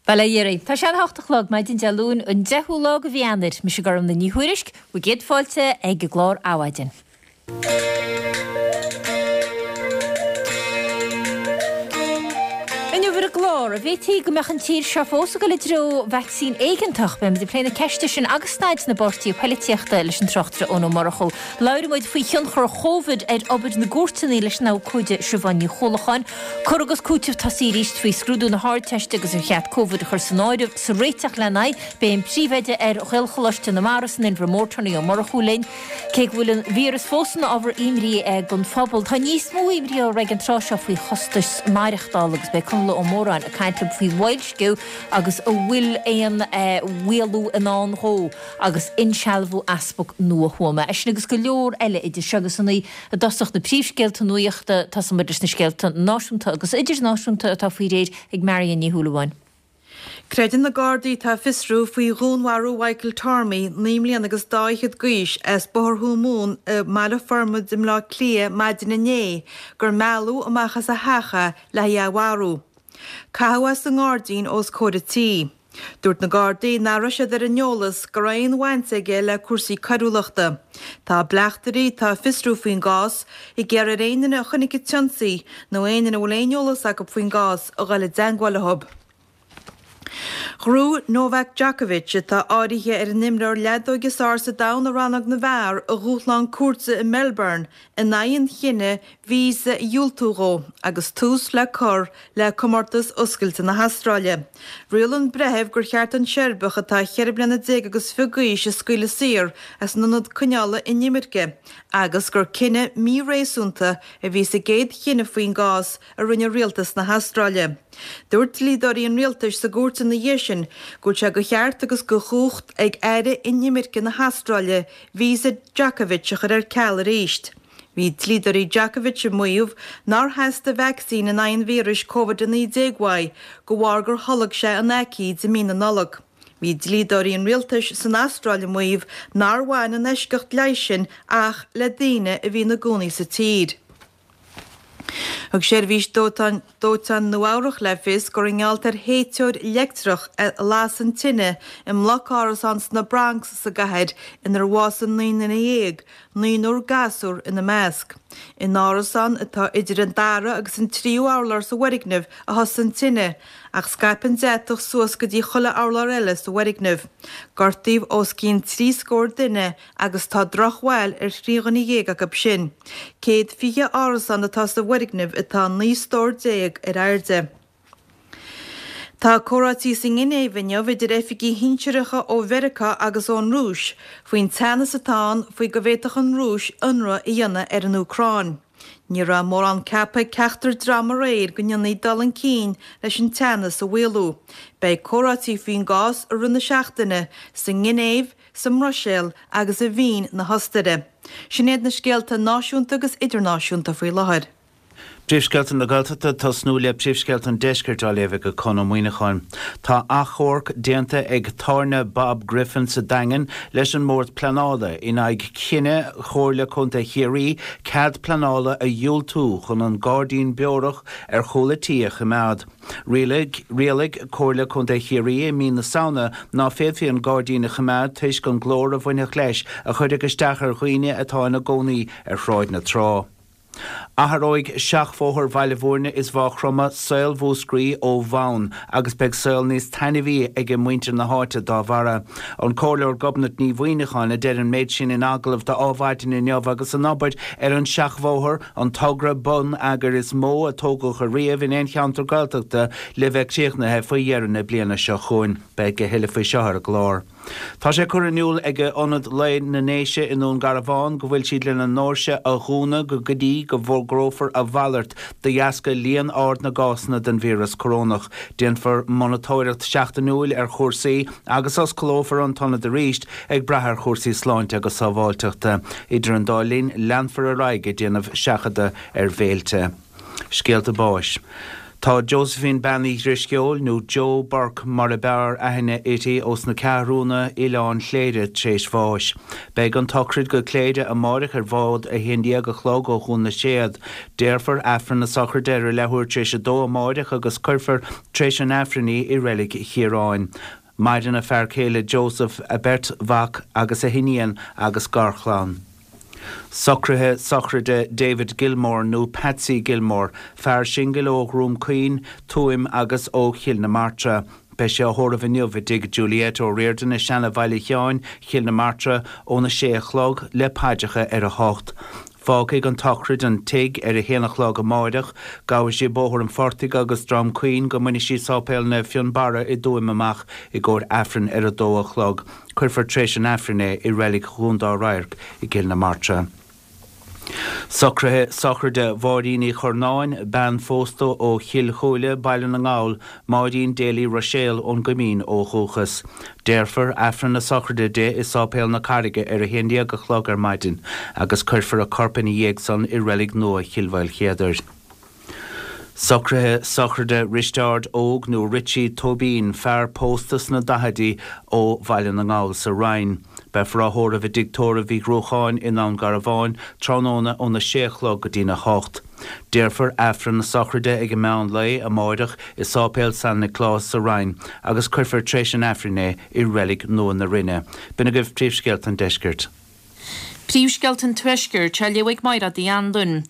Bail ó Dhia oraibh. Tá sé an 8 a chlog, maidin Dé Luain, an 10ú lá de mhí Eanáir. Mise Gormlaith Ní Thuairisg, bhur gcéad fáilte ag an gclár Adhmhaidin. Inniu ar an gclár, an bhféadfaí go mbeadh an tír seo fós ag dul i dtreo vacsaín éigeantach? Beimid ag plé na ceiste sin agus staid na bpáirtithe poilitíochta leis an tráchtaire Eoin Ó Murchú. Labhróidh muid faoi thionchar Chóvid ar obair na gcúirteanna leis an abhcóide Siobhán Ní Chuallacháin. Cur agus cúiteamh tosaithe arís faoi scrúdú na hArdteiste agus ar cheart Covid a chur san áireamh sa réiteach lena aghaidh. Beidh an príomhoide ar Ghaelcholáiste na Mara san Inbhear Mór, Tony Ó Murchú linn. Cé go bhfuil an víreas fós ina ábhar imní don phobal, tá níos mó imní orthu ag an tráth seo faoi chostais maireachtála agus beidh Conall Ó Móráin ag caint linn faoi bhoilsciú agus an bhfuil aon mhaolú i ndán dhó agus insealbhú Easpag nua Thuama. É sin agus go leor eile idir seo agus a 9. I dtosach na príomhscéalta nuachta, tosóidh muid leis na scéalta náisiúnta agus idirnáisiúnta atá faoi réir ag Marion Ní Shúilleabháin. Creideann na Gardaí atá ag fiosrú faoi dhúnmharú Mhichael Tormey, 9 mbliana agus dá fhichead d'aois, as Bóthar Thuamhumhan i mBaile Formaid i mBleá Cliath maidin inné gur mealladh amach as a theach é le haghaidh é a mharú. Caitheadh é sa ngairdín os comhair an tí. Dúirt na Gardaí nach raibh siad ar an eolas go raibh aon bhaint aige le cúrsaí coiriúlachta. Tá bleachtairí atá ag fiosrú faoin gcás ag iarraidh ar aon duine a chonaic an t-ionsaí nó aon duine a bhfuil aon eolas acu faoin gcás a dhul i dteangmháil leo. Ghnóthaigh Novak Djokovic, atá áirithe ar an imreoir leadóige is fearr sa domhan i rannóg na bhfear, a dhúshlán cúirte i Melbourne in aghaidh an chinnidh víosa a dhiúltú dhó agus tús le cur le Comórtas Oscailte na hAstráile. Rialaigh an breitheamh gur cheart an Seirbeach atá cheithre bliana déag agus fiche d'aois a scaoileadh saor as an ionad coinneála inimirce agus gur cinneadh míréasúnta a bhí sa gcéad chinneadh faoin gcás a rinne rialtas na hAstráile. Dúirt dlíodóirí an rialtais sa gcúirt ina dhiaidh sin go bhfuil sé de cheart agus de chumhacht ag Aire Inimirce na hAstráile víosa Djokovic a chur ar ceal arís. Bhí dlíodóirí Djokovic ag maíomh nár theastaigh vacsaín in aghaidh an víris Covid-19 uaidh de bharr gur tholg sé an aicíd i mí na Nollag. Bhí dlíodóirí an rialtais san Astráil ag maíomh nár bhain an eisceacht leighis sin ach le daoine a bhí ina gcónaí sa tír. Thug seirbhís dóiteáin Dóiteáin Nua-Eabhrac le fios gur i ngeall ar théiteoir leictreach a las an tine i mbloc árasán sna Bronx sa gcathair inar bhásaigh 19 nduine, naonúr gasúr ina measc. In árasán atá idir an dara agus an tríú urlár sa bhfoirgneamh a thosaigh an tine ach scaip an deatach suas go dtí chuile urlár eile sa bhfoirgneamh. Gortaíodh os cionn trí scór duine agus tá drochbhail ar thrí dhuine dhéag acu sin. 120 árasán atá sa bhfoirgneamh atá 19 stór ar airde. Tá comhráití sa nGinéiv inniu idir oifigigh shinsearacha ó Mheiriceá agus ón Rúis faoin teannas atá ann faoi go bhféadfadh an Rúis ionradh a dhéanamh ar an Úcráin. Ní raibh mórán ceaptha ag ceachtar dream aréir go ndéanfaí dul chun cinn leis an teannas a mhaolú. Beidh comhráití faoin gcás i rith na seachtaine sa nGinéiv, sa mBruiséil agus i Vín na hOstaire. Sin iad na scéalta náisiúnta agus idirnáisiúnta faoi láthair. Príomhscéalta na Gaeltachta ag tosnú le príomhscéalta an Deiscirt á léamh ag Conn Ó Muíneacháin. Tá achomharc déanta ag Tábhairne Bob Griffin sa Daingean leis an mBord Pleanála in aghaidh chinneadh Chomhairle Contae Chiarraí cead pleanála a dhiúltú chun an gairdín beorach ar chúl a tí a choimeád. Rialaigh Rialaigh Comhairle Contae Chiarraí i mí na Samhna ná féadfaí an gairdín a choimeád toisc an glór a bhainfeadh leis a chuirfeadh isteach ar dhaoine atá ina gcónaí ar Shráid na Trá. Athróidh seachbhóthar Bhaile Bhúirne is Mhaigh Chromtha saol Mhúscraí ó bhonn agus beidh saol níos taitneamhaí ag muintir na háite dá bharra. An Comhairleoir Gobnait Ní Mhuimhneacháin a deir an méid sin in agallamh do Adhmhaidin inniu agus an obair ar an seachbhóthar, an togra bonneagair is mó a tógadh ariamh in aon cheantar Gaeltachta, le bheith críochnaithe faoi dheireadh na bliana seo chugainn. Beidh a thuilleadh faoi seo ar an gclár. Tá sé curtha in iúl ag Ionad Lae na nDéise i nDún Garbhán go bhfuil siad lena ndoirse a dhúnadh go go dtí go bhfógrófar a mhalairt de dheasca líon ard na gcásanna den víreas corónach. Déanfar monatóireacht seachtainiúil ar chúrsaí agus osclófar an t-ionad arís ag brath ar chúrsaí sláinte agus sábháilteachta. Idir an dá linn, leanfar ar aghaidh ag déanamh seachadadh ar bhéilte. Scéalta báis. Tá Josephine Bean Uí Dhrisceoil, nó Joe Burke mar a b'fhearr aithne uirthi, ós na Ceathrúna, Oileán Chléire, tréis bháis. Beidh an tsochraid go Cléire amáireach ar bhád 11 a chlog ó Dhún na Séad. Déarfar Aifreann na sochraide ar a leathuair tréis a dó amáireach agus cuirfear tréis an Aifrinn í i Reilig Chiaráin. Maireann a fear céile Joseph, a beirt mhac agus a hiníon agus garchlann. Socruithe sochraide David Gilmore nó Patsy Gilmore, fear singil ó Dhroim Caoin, Tuaim agus ó Chill na Martra. Beidh sé á thórramh inniu i dtigh Juliette O'Riordan i Seana Bhaile Sheáin, Chill na Martra, óna sé a chlog, le paidreacha ar a hocht. Fágfaidh an tsochraid an tigh ar a haon a chlog amáireach. Gabhfaidh sí Bóthar an Phortaigh agus Droim Caoin go mbainfidh sí Sáipéal Naomh Fionnbarra i dTuaim amach i gcomhair Aifrinn ar a dó a chlog. Cuirfear tréis an Aifrinn é i Reilig Dhún Dá Radharc i gCill na Martra. Socruithe sochraide Mháirín Uí Churnáin, bean phósta ó Chill Chúile, Baile na nGall, Máirín Daly Ruiséal ón gCoimín ó dhúchas. Déarfar Aifreann na sochraide di i Sáipéal na Carraige ar a haon déag a chlog ar maidin agus cuirfear a corp ina dhiaidh san i Reilig Nua Chill Mhaoilchéadair. Socruithe sochraide Risteárd Óg nó Richie Tóibín, fear pósta sna daichidí ó Bhaile na nGall sa Rinn. Beifear á thórramh i dtigh tórraimh Uí Ghruacháin i nDún Garbhán tráthnóna óna sé a chlog go dtína hocht. Déarfar Aifreann na sochraide ag an meán lae amáireach i Sáipéal San Nioclás sa Rinn agus cuirfear tréis an Aifrinn é i Reilig Nua na Rinne. B'in agaibh príomhscéalta an deiscirt. Príomhscéalta an Tuaiscirt á léamh ag Mairéad Uí Anluain.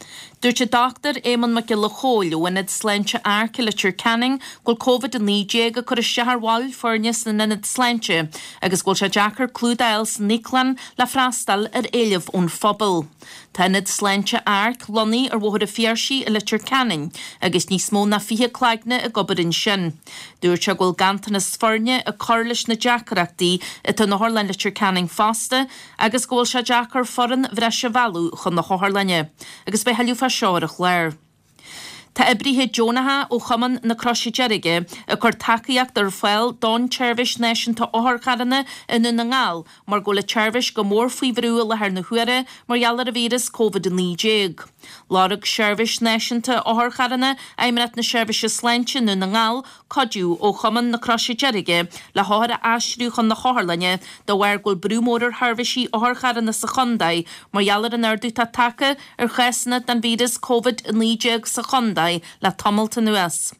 Dúirt an Dr Éamonn Mac Giolla Chóill ó Ionad Sláinte Arc i Leitir Ceanainn go bhfuil Covid-19 ag cur isteach ar bhaill foirne san ionad sláinte agus go bhfuil sé deacair clúdach a fháil san íoclann le freastal ar éileamh ón phobal. Tá Ionad Sláinte Arc lonnaithe ar Bhóthar an Phiarsaigh i Leitir Ceanainn agus níos mó ná 20 cloigne ag obair ansin. Dúirt sé go bhfuil ganntanas foirne ag cur leis na deacrachtaí atá in Otharlann Leitir Ceanainn fosta agus go bhfuil sé deacair foireann bhreise a mhealladh chun na hotharlainne. Agus beidh tuilleadh fá seo ar an chlár. Tá oibrithe deonacha ó Chumann na Croise Deirge ag cur tacaíocht ar fáil don tSeirbhís Náisiúnta Otharcharranna i nDún na nGall mar go bhfuil an tseirbhís go mór faoi bhrú i láthair na huaire mar gheall ar an víreas Covid-19. Lorg Seirbhís Náisiúnta Otharcharranna Fheidhmeannacht na Seirbhíse Sláinte i nDún na nGall cuidiú ó Chumann na Croise Deirge le hothair a aistriú chun na hotharlainne de bharr go bhfuil brú mór ar sheirbhísí otharcharranna sa chontae mar gheall ar an ardú atá tagtha ar chásanna den víreas Covid-19 sa chontae le tamalt anuas.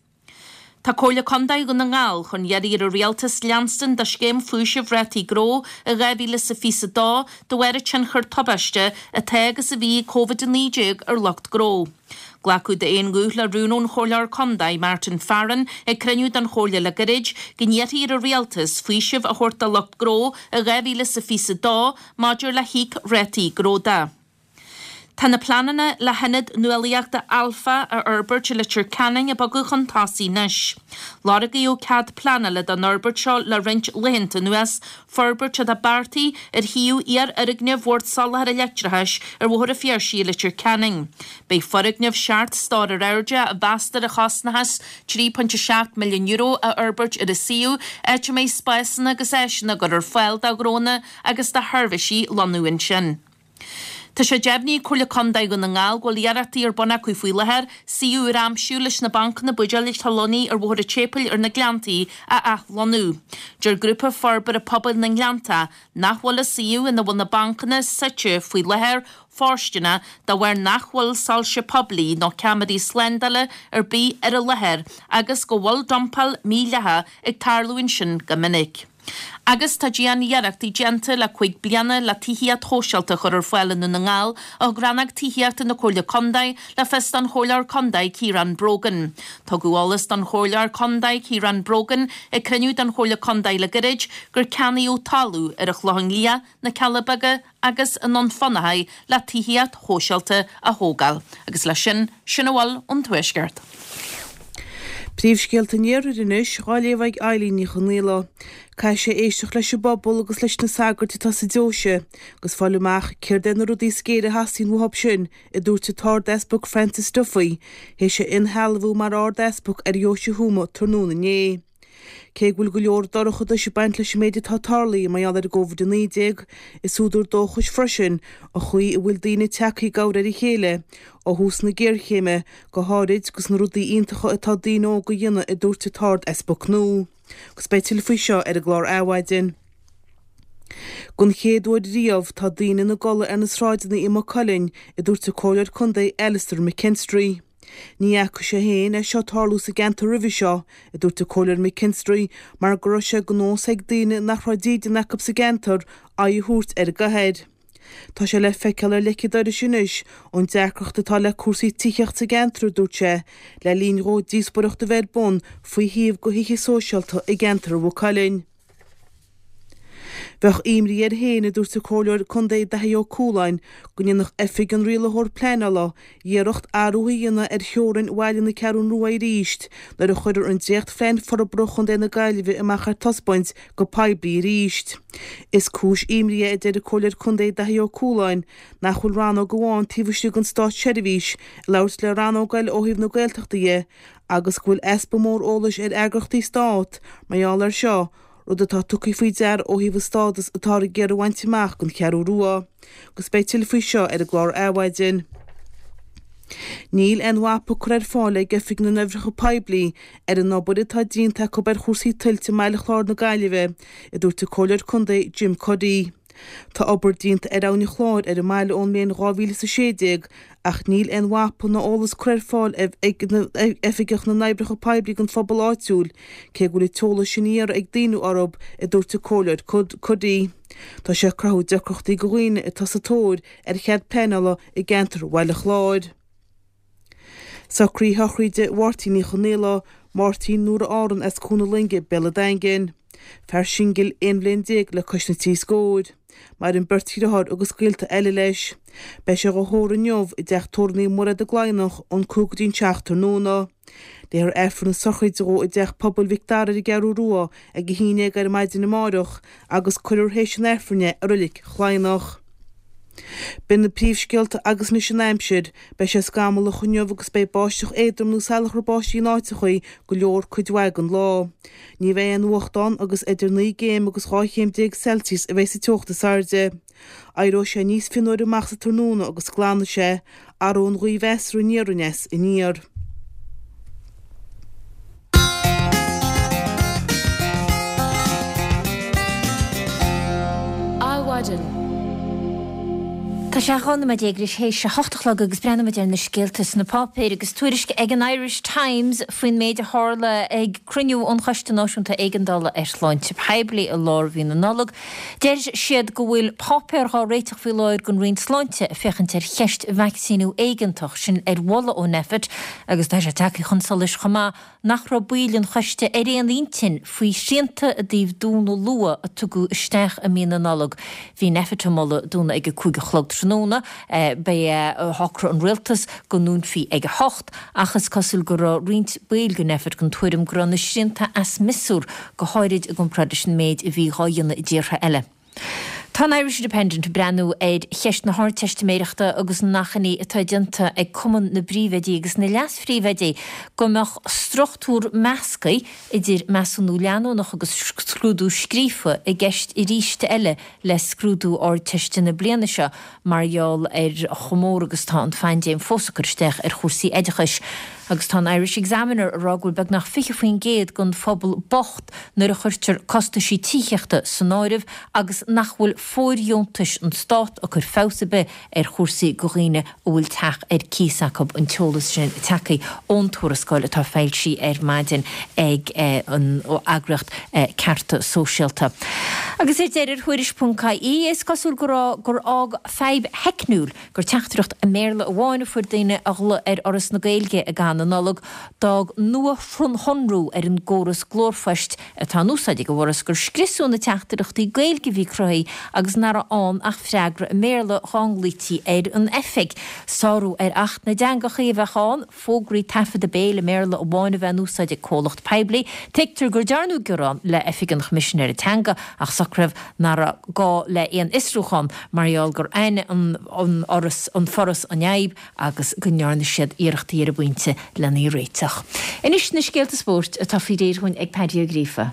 Tá Comhairle Contae Dhún na nGall chun iarraidh ar an Rialtas leanstan de scéim faoisimh rátaí gnó i 2022 de bharr an tionchar tubaiste atá agus a bhí ag Covid-19 ar lucht gnó. Glacadh d'aon ghuth le rún ón Chomhairleoir Contae, Martin Farren, ag cruinniú den Chomhairle le gairid, go n-iarrfaí ar an Rialtas faoiseamh a thabhairt do lucht gnó i 2022 maidir le híoc rátaí gnó de. Tá na pleananna le hIonad Nuálaíochta Alpha a fhorbairt i Leitir Ceanainn ag bogadh chun tosaigh anois. Lorgaíodh cead pleanála don fhorbairt seo le roinnt laethanta anuas, forbairt atá beartaithe ar shuíomh iarfhoirgneamh Bhord Soláthair Leictreachais ar Bhóthar an Phiarsaigh i Leitir Ceanainn. Beidh foirgneamh seacht stór ar airde, a mheastar a chosnóchas €3.7 milliún, á fhorbairt ar an suíomh, áit a mbeidh spásanna agus áiseanna á gcur ar fáil do ghnónna agus do sheirbhísí lonnú ansin. Tá sé deimhnithe ag Comhairle Contae Dhún na nGall go bhfuil iarrachtaí ar bun acu faoi láthair suíomh úr a aimsiú leis na bancanna buidéil atá lonnaithe ar Bhóthar an tSéipéil ar na Gleanntaí a athlonnú. Deir Grúpa Forbartha Pobail na nGleanntach nach bhfuil an suíomh ina bhfuil na bancanna suite faoi láthair fóirsteanach de bharr nach bhfuil soilse poiblí nó ceamaraí slándála ar bith ar an láthair agus go bhfuil dumpáil mhídhleathach ag tarlú ansin go minic. Agus tá dian-iarrachtaí déanta le 5 bliana le tithíocht shóisialta a chur ar fáil i nDún na nGall, a thug Rannóg Tithíochta na Comhairle Contae le fios don Chomhairleoir Contae Ciarán Brogan. Tugadh eolas don Chomhairleoir Contae Ciarán Brogan ag cruinniú den Chomhairle Contae le gairid gur ceannaíodh talamh ar an Chlochán Liath, na Cealla Beaga agus i nDún Fionnachaidh le tithíocht shóisialta a thógáil. Agus leis sin, sin a bhfuil ón Tuaisceart. Príomhscéalta an Iarthair anois, dhá léamh ag Eilín Ní Chonaola. Caithfidh sé éisteacht leis an bpobal agus leis na sagairt atá sa deoise agus fáil amach céard é na rudaí is géire a theastaíonn uathub sin, a dúirt an tArd-Easpag Francis Duffy, théis a inshealbhú mar Ard-Easpag ar Dheoise Thuama tráthnóna inné. Cé go bhfuil go leor dorchadais ag baint leis an méid atá tarlaithe mar gheall ar an gCovid-19, is údar dóchais freisin an chaoi a bhfuil daoine tagtha i gcabhair ar a chéile ó thús na géarchéime, go háirid agus na rudaí iontacha atá daoine óga a dhéanamh, a dúirt an tArd-Easpag nua. Agus beidh tuilleadh faoi seo ar an gclár Adhmhaidin. Don chéad uair riamh tá daoine ina gcodladh ar na sráideanna i Maigh Cuilinn, a dúirt an Comhairleoir Contae Alastair McKinstry. Ní fhaca sé féin é seo tarlú sa gceantar roimhe seo, a dúirt an Comhairleoir McKinstry, mar go raibh sé de nós ag daoine nach raibh dídean acu sa gceantar aghaidh a thabhairt ar an gcathair. Tá sé le feiceáil ar leic an dorais anois an deacracht atá le cúrsaí tithíochta sa gceantar, a dúirt sé, le linn dhó díospóireacht a bheith ar bun faoi shuíomh do thithe sóisialta i gceantar Mhaigh Cuilinn. Bheadh imní air féin, a dúirt an Comhairleoir Contae Daithí Ó Cualáin, go ndéanfadh Oifig an Rialaitheoir Pleanála iarracht athrú a dhéanamh ar theorainn bhaile na Ceathrún Rua arís nuair a chuirfear an dréachtphlean forbartha Chontae na Gaillimhe amach ar taispeáint go poiblí arís. Is cúis imní é, a deir an Comhairleoir Contae Daithí Ó Cualáin, nach bhfuil rannóg amháin taobh istigh den státseirbhís ag labhairt le rannóg eile ó thaobh na Gaeltachta dhe agus go bhfuil easpa mór eolais ar eagraíochtaí stát mar gheall air seo, rud atá tugtha faoi deara ó thaobh an stádas atáthar ag iarraidh a bhaint amach don Cheathrú Rua. Agus beidh tuilleadh faoi seo ar an gclár Adhmhaidin. Níl aon mhapa curtha ar fáil ag Oifig na nOibreacha Poiblí ar an obair atá déanta acu ar chúrsaí tuilte i mBaile Chláir na Gaillimhe, a dúirt an Comhairleoir Contae Jim Cuddy. Tá obair déanta ar Abhainn an Chláir ar an mbaile ón mbliain 2016 ach níl aon mhapa ná eolas curtha ar fáil ag Oifigeach na nOibreacha Poiblí don phobal áitiúil, cé go bhfuil an t-eolas sin á iarraidh ag daoine orthu, a dúirt an Comhairleoir Cuddy. Tá sé ag cruthú deacrachtaí do dhaoine atá sa tóir ar chead pleanála i gceantar Bhaile Chláir. Socruithe sochraide Mháirtín Uí Chonaola, Máirtín Nóra Árann as Cuan na Loinge, Béal an Daingin. Fear singil 11 bhliain le cois na trí scóir. Maireann beirt dhriotháir agus gaolta eile leis. Beidh sé dhá thórramh inniu i dteach tórraimh Naomh Mairéad i gCladhnach ón 5 go dtí an 7 tráthnóna. Léifear Aifreann na sochraide dhó i dTeach Pobail Mhic Dara ar an gCeathrú Rua ag 11 ar maidin amáireach agus cuirfear théis an Aifrinn é i Reilig Chladhnach. B'in na príomhscéalta agus anois an aimsir. Beidh sé scamallach inniu agus beidh báisteach éadrom nó salachar báistí in áiteachaí go leor cuid mhaith den lá. Ní bheidh aon fhuacht ann agus idir 9 gcéim agus 12 chéim Celsius a bheidh sa teocht is airde. Éireoidh sé níos fionnuaire amach sa tráthnóna agus glanfaidh sé. Athróidh an ghaoth mheasartha aniar aneas aniar. Adhmhaidin. Tá sé 12 nóiméad théis a hocht a chlog agus breathnóimid ar na scéalta sna páipéir agus tuairisc ag an Irish Times faoin méid a tharla ag cruinniú an Choiste Náisiúnta Éigeandála ar Shláinte Poiblí i lár mhí na Nollag. Deir siad go bhfuil páipéar dhá réiteach faoi láthair don Roinn Sláinte ag féachaint ar cheist vacsaíniú éigeantach, sin ar mholadh ó Nphet agus tá sé tagtha chun solais chomh maith nach raibh baill an choiste ar aon intinn faoi shrianta i dtaobh dúnadh luath a tugadh isteach i mí na Nollag. Bhí Nphet ag moladh dúnadh ag a 5 a chlog tráthnóna. Ba é a shocraigh an rialtas go ndúnfaí ag a hocht ach is cosúil go raibh roinnt baill de Nphet den tuairim go raibh na srianta as miosúr, go háirid i gcomparáid leis an méid a bhí dhá dhéanamh i dtíortha eile. Tá an Irish Independent ag breathnú ar cheist na hArdteistiméireachta agus an achainí atá déanta ag Cumann na bPríomhoidí agus na Leas-Phríomhoidí go mbeadh struchtúr measctha idir measúnú leanúnach agus scrúdú scríofa i gceist arís eile le scrúdú Ardteiste na bliana seo mar gheall ar chomh mór agus atá an phaindéim fós ag cur isteach ar chúrsaí oideachais. Agus tá an Irish Examiner ag rá go bhfuil beagnach 20% den phobal bocht nuair a chuirtear costaisí tithíochta san áireamh agus nach bhfuil fóirdheontais an Stát ag cur feabhas ar bith ar chúrsaí do dhaoine a bhfuil teach ar cíos acu, an t-eolas sin tagtha ón tuarascáil atá foilsithe ar maidin ag an eagraíocht Cearta Sóisialta. Agus ar deireadh ar Thuairisc.ie is cosúil go raibh gur fhág fadhb theicniúil gur teachtaireacht i mBéarla amháin a fuair daoine a ghlaoigh ar Fhoras na Gaeilge i gcaitheamh na Nollag. D'fhág nuashonrú ar an gcóras glórphoist atá in úsáid ag an bhForas gur scriosadh na teachtaireachtaí Gaeilge a bhí cruthaithe agus nach raibh ann ach freagra i mBéarla dhá nglaoití ar an oifig. Sárú ar Acht na dTeangacha a bheadh ann. fógraí taifeadta béil i mBéarla amháin a bheith in úsáid ag comhlacht poiblí. Tuigtear gur dearnadh gearán le Oifig an Choimisinéara Teanga ach. socruithe nach raibh gá le aon fhiosrúchán mar gheall gur aithin an an Foras an fhadhb agus go ndearna siad iarrachtaí ar an bpointe lena í réiteach. Anois na scéalta spóirt atá faoi réir dhúinn ag Paddy Ó Gríofa.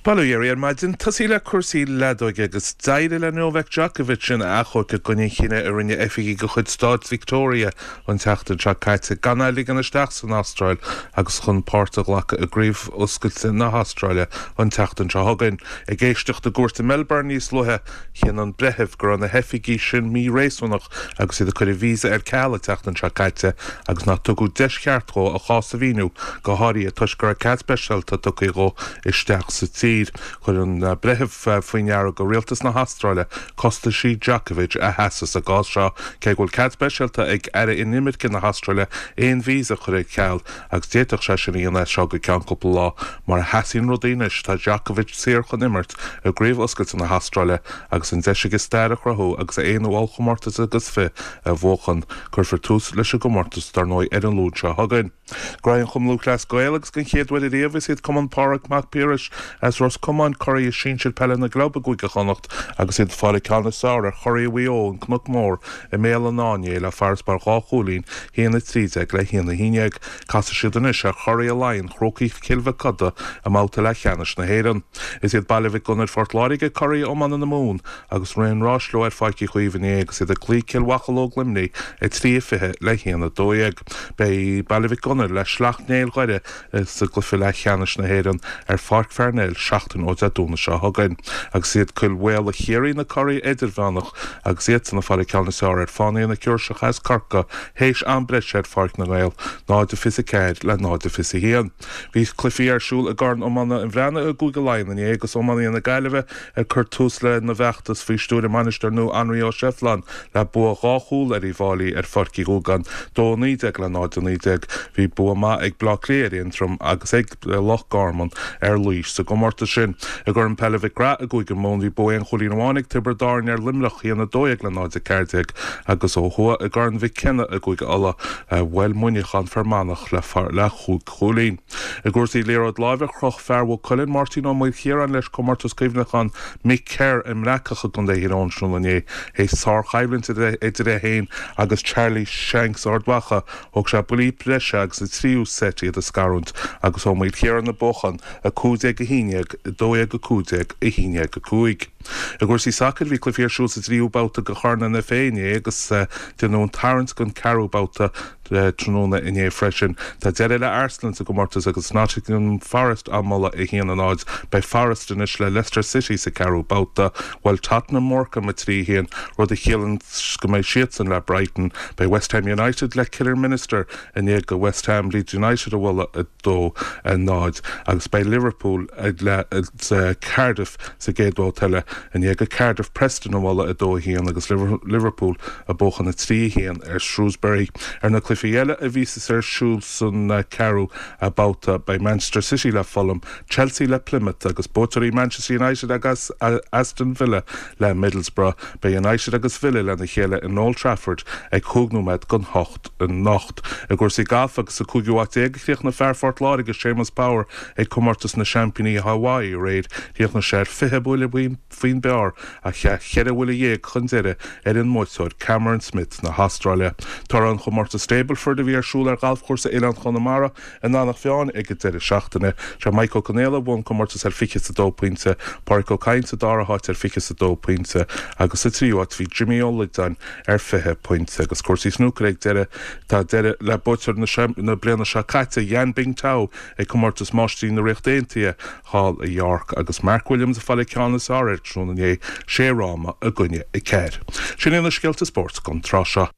Bail ó Dhia oraibh ar maidin. Tosaí le cúrsaí leadóige agus d'éirigh le Novak Djokovic ina achomharc i gcoinne an chinnidh a rinne oifigigh de chuid stáit Victoria an tseachtain seo caite gan é a ligean isteach san Astráil agus chun páirt a ghlacadh i gCraobh Oscailte na hAstráile an tseachtain seo chugainn. Ag éisteacht i gcúirt i Melbourne níos luaithe, chinn an breitheamh go raibh na hoifigigh sin mí-réasúnach agus iad ag cur a víosa ar ceal an tseachtain seo caite agus nach tugadh deis cheart dhó a chás a mhíniú, go háirithe toisc go raibh cead speisialta tugtha dhó isteach sa tír. Chuir an breitheamh faoi ndeara do rialtas na hAstráile costaisí Djokovic a sheasamh sa gcás seo, cé go bhfuil cead speisialta ag Aire Inimirce na hAstráile aon víosa a chur ar ceal agus d'fhéadfadh sé sin a dhéanamh as seo go ceann cúpla lá. Mar a sheasaíonn rudaí anois, tá Djokovic saor chun imirt i gCraobh Oscailte na hAstráile agus an deis aige stair a chruthú agus a aonú ollchomórtas agus fi a bhuachan. Cuirfear tús leis an gcomórtas, dar ndóigh, ar an Luan seo chugainn. Gnóthaithe an Chumann Lúthchleas Gael agus den chéad uair ariamh is iad Cumann Phádraig Mac Piarais as Ros Comáin curaidh sinsir peile na gclub i gCúige Chonnacht agus iad ag fáil an ceann is fearr ar churaidh Mhaigh Eo, An Cnoc Mór, i mBéal an Átha inné le farasbarr 2 chúilín, 1-13 le 1-11. Casfaidh siad anois ar churaidh Laighean, Crócaigh Chill Mhic Coda, i mbabhta leathcheannais na hÉireann. Is iad Baile Mhic Gonair Phort Láirge curaidh iomána na Mumhan agus rith an ráis leo ar Pháirc Uí Chaoimh inné agus iad ag cloí Cill Mhocheallóg Luimnigh, 3-20 le 1-12. Beidh Baile Mhic Gonair le Sleacht Néill Dhoire sa gcluiche leathcheannais na hÉireann ar Pháirc Pharnell seachtain ó Dé Domhnaigh seo chugainn. Agus is iad Cill Mhaola Chiarraí na curaidh idirmheánach agus iadsan ag fáil an ceann is fearr ar Fánaithe na Seoirseach as Corcaigh théis am breise ar Pháirc na nGael, 0-24 le 0-21. Bhí cluichí ar siúl i gCorn Iomána an Bhreathnaigh i gCúige Laighean inné agus iománaithe na Gaillimhe ag cur tús lena bhfeachtas faoi stiúir a mbainisteoir nua Anraí Ó Seibhleáin le bua 2 chúl ar Uíbh Fháilí ar Pháirc Uí Dhúgáin, 2-19 le 0-19. Bhí bua maith ag Bleá Cliath ar Aontroim agus ag Loch Garman ar Laois sa gcomórtas sin. I gCorn Peile Mhic Grath i gCúige Mumhan bhí bua aon chúilín amháin ag Tiobraid Árann ar Luimneach, 1-12 le 0-14, agus ó thuaidh i gCorn Mhic Cionnaith i gCúige Uladh bhuail Muineachán Fear Manach le chúig chúilín. I gcúrsaí liathróid láimhe, chroch fear Mhaigh Cuilinn, Máirtín Ó Maoilchiaráin leis comórtas cuimhneacháin Mick Kerr i mBreacach i gContae Thír Eoghain tráthnóna inné. Théis sárchoimhlint idir é féin agus Charlie Shanks Ard Mhacha, thóg sé buillí breise agus sa tríú seit iad a scarúint agus Ó Maoilchiaráin ag buachan, 15 11, 12 15, 11 5. I gcúrsaí sacair, bhí cluichí ar siúl sa dtríú babhta de Chorn an FA inné agus déanadh an tarraingt don ceathrú babhta tráthnóna inné freisin. Tá deireadh le Arsenal sa gcomórtas agus Nottingham Forest á mbualadh 1-0. Beidh Forest anois le Leicester City sa ceathrú babhta. Bhuail Tottenham Morecambe 3-1, rud a chiallaíonn go mbeidh siadsan le Brighton. Beidh West Ham United le Kidderminster i ndiaidh do West Ham Leeds United a bhualadh 2-0 agus beidh Liverpool le Cardiff sa gcéad bhabhta eile i ndiaidh do Cardiff Preston a bhualadh 2-1 agus Liverpool ag buachan 3-1 ar Shrewsbury. Ar na cluichí eile a bhíos ar siúl san ceathrú babhta beidh Manchester City le Fulham, Chelsea le Plymouth agus buaiteoirí Manchester United agus Aston Villa le Middlesbrough. Beidh United agus Villa lena chéile in Old Trafford ag chúig nóiméad don hocht anocht. I gcúrsaí gailf agus sa cúigiú háit déag a chríochnaigh fear Phort Láirge, Séamus Power, ag Comórtas na Seaimpíní Hawaii aréir. Chríochnaigh sé ar 20 buille faoin bpar ach chaith cheithre bhuille dhéag chun deiridh ar an mbuaiteoir Cameron Smith na hAstráile. Toradh an chomórtais Stableford a bhí ar siúl ar ghalfchúrsa Oileán Chonamara in Eanach Mheáin ag an deireadh seachtaine. Sé Mike Ó Conaola a bhuaigh an comórtas ar 22 pointe, Pádraic Ó Cadhain sa dara háit ar 22 pointe agus sa tríú háit bhí Jimmy Ó Loideáin ar 20 pointe. Agus cúrsaí snúcair ag deireadh, tá deireadh le buaiteoir na bliana seo caite, Yan Bingtao, ag Comórtas Máistrí na Ríochta Aontaithe thall i York agus Mark Williams ag fáil an ceann is fearr air tráthnóna inné, sé fhráma i gcoinne a ceathair. Sin iad na scéalta spóirt don tráth seo.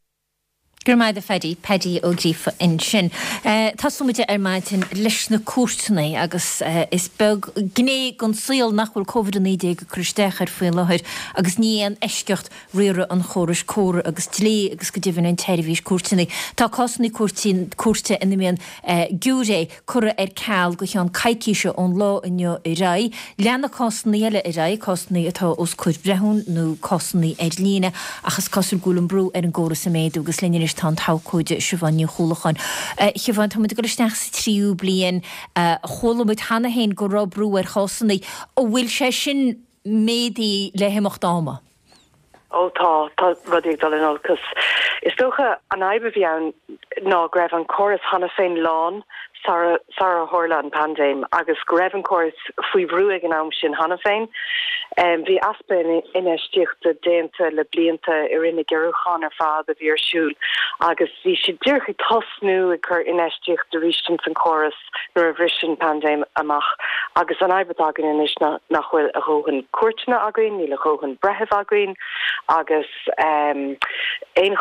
Go raibh maith agat a Phaddy, Paddy Ó Gríofa ansin. Tosóidh muid ar maidin leis na cúirteanna agus is beag gné den saol nach bhfuil Covid-19 ag cur isteach air faoi láthair agus ní aon eisceacht riaradh an chórais córa agus dlí agus go deimhin an tseirbhís cúirteanna. Tá cásanna cúirte ina mbíonn giúiré curtha ar ceal go cheann coicíse ón lá inniu ar aghaidh. Leanfaidh cásanna eile ar aghaidh, cásanna atá os comhair breithiúin nó cásanna ar líne, ach is cosúil go bhfuil an brú ar an gcóras ag méadú agus linn anois tá an t-abhcóide Siobhán Ní Chuallacháin. A Shiobhán, tá muid ag dul isteach sa tríú bliain. Chuala muid cheana féin go raibh brú ar chásanna. An bhfuil sé sin. méadaithe le himeacht ama. Ó tá, tá rudaí ag dul in olcas. Is dócha an fhadhb a bhí ann ná go raibh an córas cheana féin lán sara sara tharla an paindéim agus go raibh an córas faoi bhrú ag an am sin cheana féin. Bhí easpa infheistíochta déanta le blianta i rith na gciorrúchán ar fad a bhí ar siúl agus bhí siad díreach ag tosnú ag cur infheistíocht arís ins an córas nuair a bhris an paindéim amach agus an fhadhb atá againn anois ná nach bhfuil a dhóthain cúirteanna againn, níl a dhóthain breitheamh againn agus aon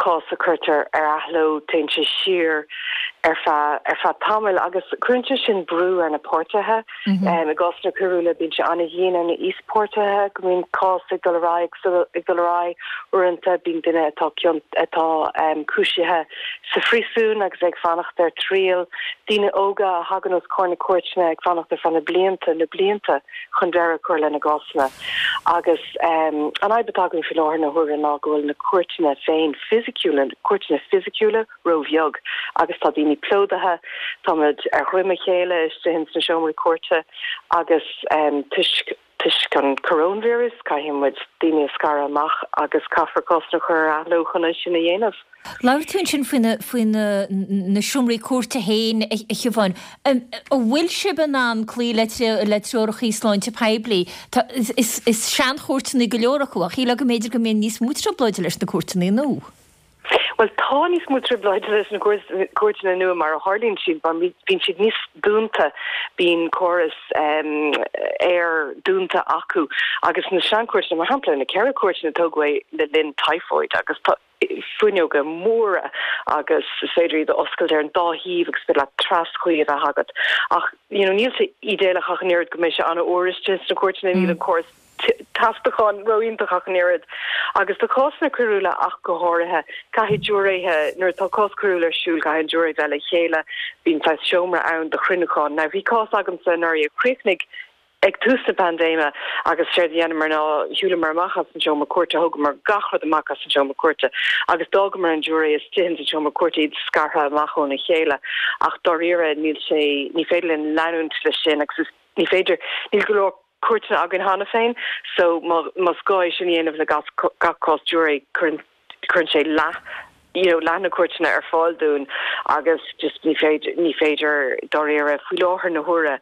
chás a cuirtear ar athló téann sé siar ar feadh ar feadh tamaill agus cuireann sé sin brú ar na páirtithe. I gcásanna coiriúla bíonn sé an-dhian ar na híospáirtithe go mbíonn cás ag dul ar aghaidh ag dul ar aghaidh. Uaireanta bíonn duine atá atá cúisithe sa phríosún agus ag fanacht ar triail, daoine óga a thagann os comhair na cúirteanna ag fanacht ar feadh na blianta, na blianta chun deireadh a chur lena gcásanna. Agus an fhadhb atá againn faoi láthair na huaire ná go bhfuil na cúirteanna féin fisiciúla, cúirteanna fisiciúla róbheag agus tá daoine plódaithe, táimid ar dhroim a chéile istigh ins na seomraí cúirte agus toisc Toisc an coróinvíreas, caithfidh muid daoine a scaradh amach agus caithfear cásanna a chur ar athló chun é sin a dhéanamh. Labhair tú ansin faoi na, faoi na, na seomraí cúirte féin, a Shiobháin. An bhfuil sibh in ann cloí le, le treorachaí sláinte poiblí? Tá, is, is seanchúirteanna go leor acu, ach shílfeá go mb'fhéidir go mbíonn níos mó trioblóide leis na cúirteanna nua. Bhuel, tá níos mó trioblóide leis na cúirteanna nua mar a tharlaíonn siad, mar bíonn siad níos dúnta, bíonn córas aer dúnta acu agus na seanchúirteanna, mar shampla, na ceithre cúirteanna a tógadh le linn typhoid agus tá fuinneoga móra agus is féidir iad a oscailt ar an dá thaobh agus is féidir leat traschuí a bheith agat. Ach, you know, níl sé ídéalach ach an oiread go mbeidh sé an-fhuar istigh sna cúirteanna, níl an córas teasachán ró-iontach ach an oiread. Agus do chásanna coiriúla ach go háirithe, caithfidh giúiréithe, nuair atá cás coiriúil ar siúl, caithfidh an giúiré bheith le chéile, bíonn saghas seomra ann do chruinniúchán. Now bhí cás agamsa anuraidh a chríochnaigh ag tús na paindéime agus séard a dheineamar ná shiúlamar amach as an seomra cúirte, thógamar gach rud amach as an seomra cúirte agus d'fhágamar an giúiré istigh ins an seomra cúirte, iad scartha amach óna chéile. Ach dáiríre níl sé, ní féidir linn leanúint leis sin agus is, ní féidir, níl go leor cúirteanna againn cheana féin so más gá é sin a dhéanamh le gach cás giúiré cuireann cuireann sé leath you know leath na cúirteanna ar fáil dúinn agus just ní féidir ní féidir dáiríre faoi láthair na huaire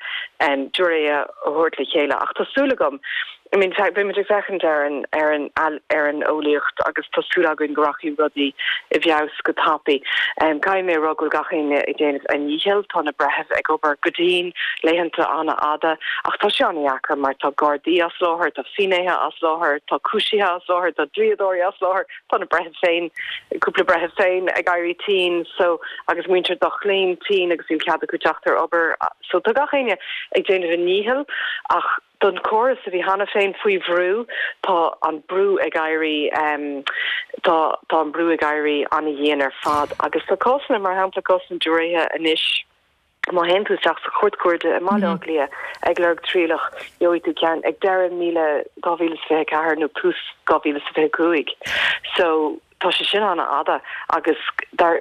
giúiré a thabhairt le chéile ach tá súil agam I mean beimid ag féachaint ar an ar an ar an eolaíocht agus tá súil againn go rachaidh rudaí i bhfeabhas go tapaidh. Caithfidh mé a rá go bhfuil gach éinne ag déanamh a ndícheall, tá na breithimh ag obair go dian, laethanta an-fhada, ach tá sé an-dheacair mar tá gardaí as láthair, tá finnéithe as láthair, tá cúisithe as láthair, tá dlíodóirí as láthair, tá na breithimh féin, cúpla breitheamh féin ag éirí tinn so agus muintir dá gclainn tinn agus níl cead acu teacht ar obair. So tá gach éinne ag déanamh a ndícheall ach don chóras a bhí cheana féin faoi bhrú, tá an brú ag éirí, tá tá an brú ag éirí an-dhian ar fad agus tá cásanna, mar shampla cásanna giúiréithe anois, má théann tú isteach sa Chúirt Chuarda i mBaile Átha Cliath ag lorg trialach, gheobhaidh tú ceann ag deireadh míle 2024 nó tús 2025. So tá sé sin an-fhada agus dar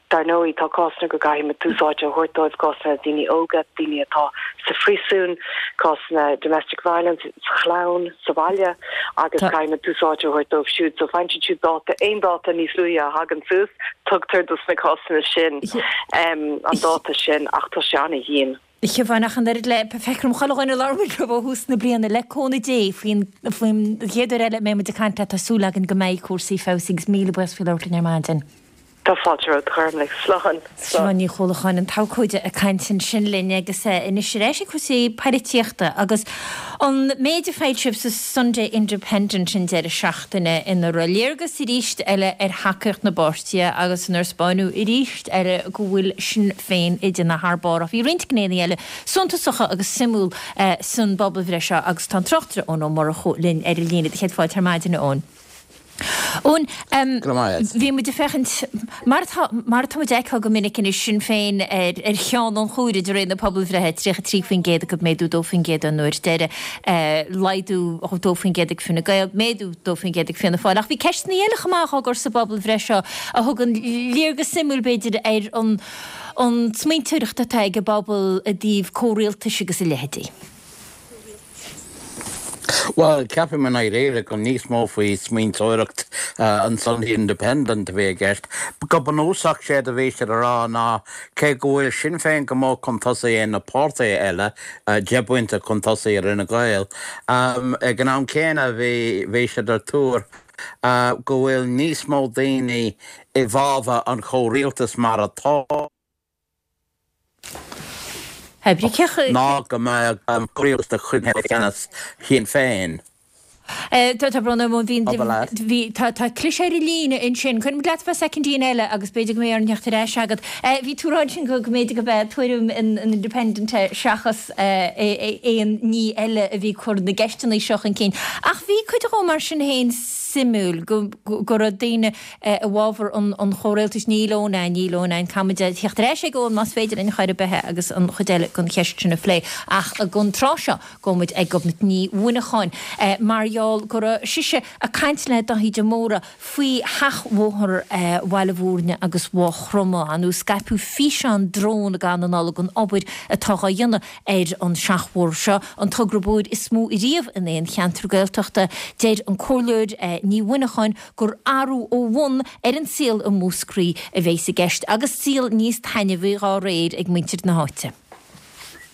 dar ndóigh tá cásanna go gcaithfidh muid tús áite a thabhairt dóibh, cásanna daoine óga, daoine atá sa phríosún, cásanna domestic violence sa chlann, sa bhaile agus caithfidh muid tús áite a thabhairt dóibh siúd. So faigheann siad siúd dáta, aon dáta níos luaithe a thagann suas, tugtar dos na cásanna sin an dáta sin ach tá sé an-dhian. A Shiobháin, ach an oiread le, feictear dom chuile dhuine a labhair muid leo ó thús na bliana, le cúnamh Dé, faoin, faoin chéad uair eile a mbeidh muid ag caint leat tá súil againn go mbeidh cúrsaí feabhsaithe agus míle buíochas faoi labhairt linn ar maidin. Tá fáilte romhat, a Ghormlaith. Slán. Siobhán Ní Chuallacháin, an t-abhcóide ag caint ansin linn agus anois ar ais ag cúrsaí poilitíochta agus an méid a foilsíodh sa Sunday Independent an deireadh seachtaine ina raibh léargas arís eile ar thacaíocht na bpáirtithe agus inar 'spáineadh arís eile go bhfuil Sinn Féin ag déanamh thar barr. Ach bhí roinnt gnéanna eile suntasacha agus suimiúil san bpobalbhreith seo agus tá an tráchtaire Eoin Ó Murchú linn ar an líne. Do chéad fáilte ar maidin, a Eoin. Eoin, bhí muid ag féachaint, mar atá, mar atá muid ag feiceáil go minic anois, Sinn Féin ar, ar cheann an chomhairimh de réir na pobalbhreithe, 33% acu, méadú 2% ón uair deiridh, laghdú 2% ag Fine Gael, méadú 2% ag Fianna Fáil. Ach bhí ceisteanna eile chomh maith á gcur sa bpobalbhreith seo a thugann léargas suimiúil, b'fhéidir, ar an, an smaointeoireacht atá ag an bpobal i dtaobh comhrialtais agus a leithéidí. Bhuel, ceapaim i ndáiríre gur níos mó faoi smaointeoireacht an Sunday Independent a bhí i gceist. Go bunúsach, séard a bhí siad a rá ná cé go bhfuil Sinn Féin go mór chun tosaigh ar na páirtithe eile, 10 bpointe chun tosaigh ar Fhine Gael, ag an am céanna bhí siad ar tuar go bhfuil níos mó daoine i bhfabhar an chomhrialtais mar atá. Ná go mbeadh comhrialtas de chuid ceannas Shinn Féin. Tá brón orm, bhí, tá cliseadh ar an líne ansin. Coinneoidh muid leat fá soicindín eile agus b'fhéidir go mbeidh orainn theacht ar ais agat. Bhí tú ag rá ansin go mb'fhéidir gurb é tuairim an Independent é seachas aon ní eile a bhí ag cur na gceisteanna seo chun cinn. Ach bhí cuid dhó mar sin féin suimiúil go raibh daoine i bhfabhar an chomhrialtais. Níl Eoin ann, níl Eoin ann. Caithfimid theacht ar ais ag Eoin más féidir linn chor ar bith agus an chuid eile den cheist sin a phlé. Ach don tráth seo, gabhfaidh muid ag Gobnait Ní Mhuineacháin mar gheall go raibh sise ag caint le Daithí de Mórdha faoi sheachbhóthar Bhaile Mhúirne agus Mhaigh Chromtha. Ar ndóigh scaipeadh físeán drón i gcaitheamh na Nollag den obair atá dhá dhéanamh ar an seachbhóthar seo, an togra bóthair is mó riamh in aon cheantar Gaeltachta. Deir an Comhairleoir Ní Mhuineacháin gur athrú ó bhun ar an saol i Múscraí a bheas i gceist agus saol níos taitneamhaí dhá réir ag muintir na háite.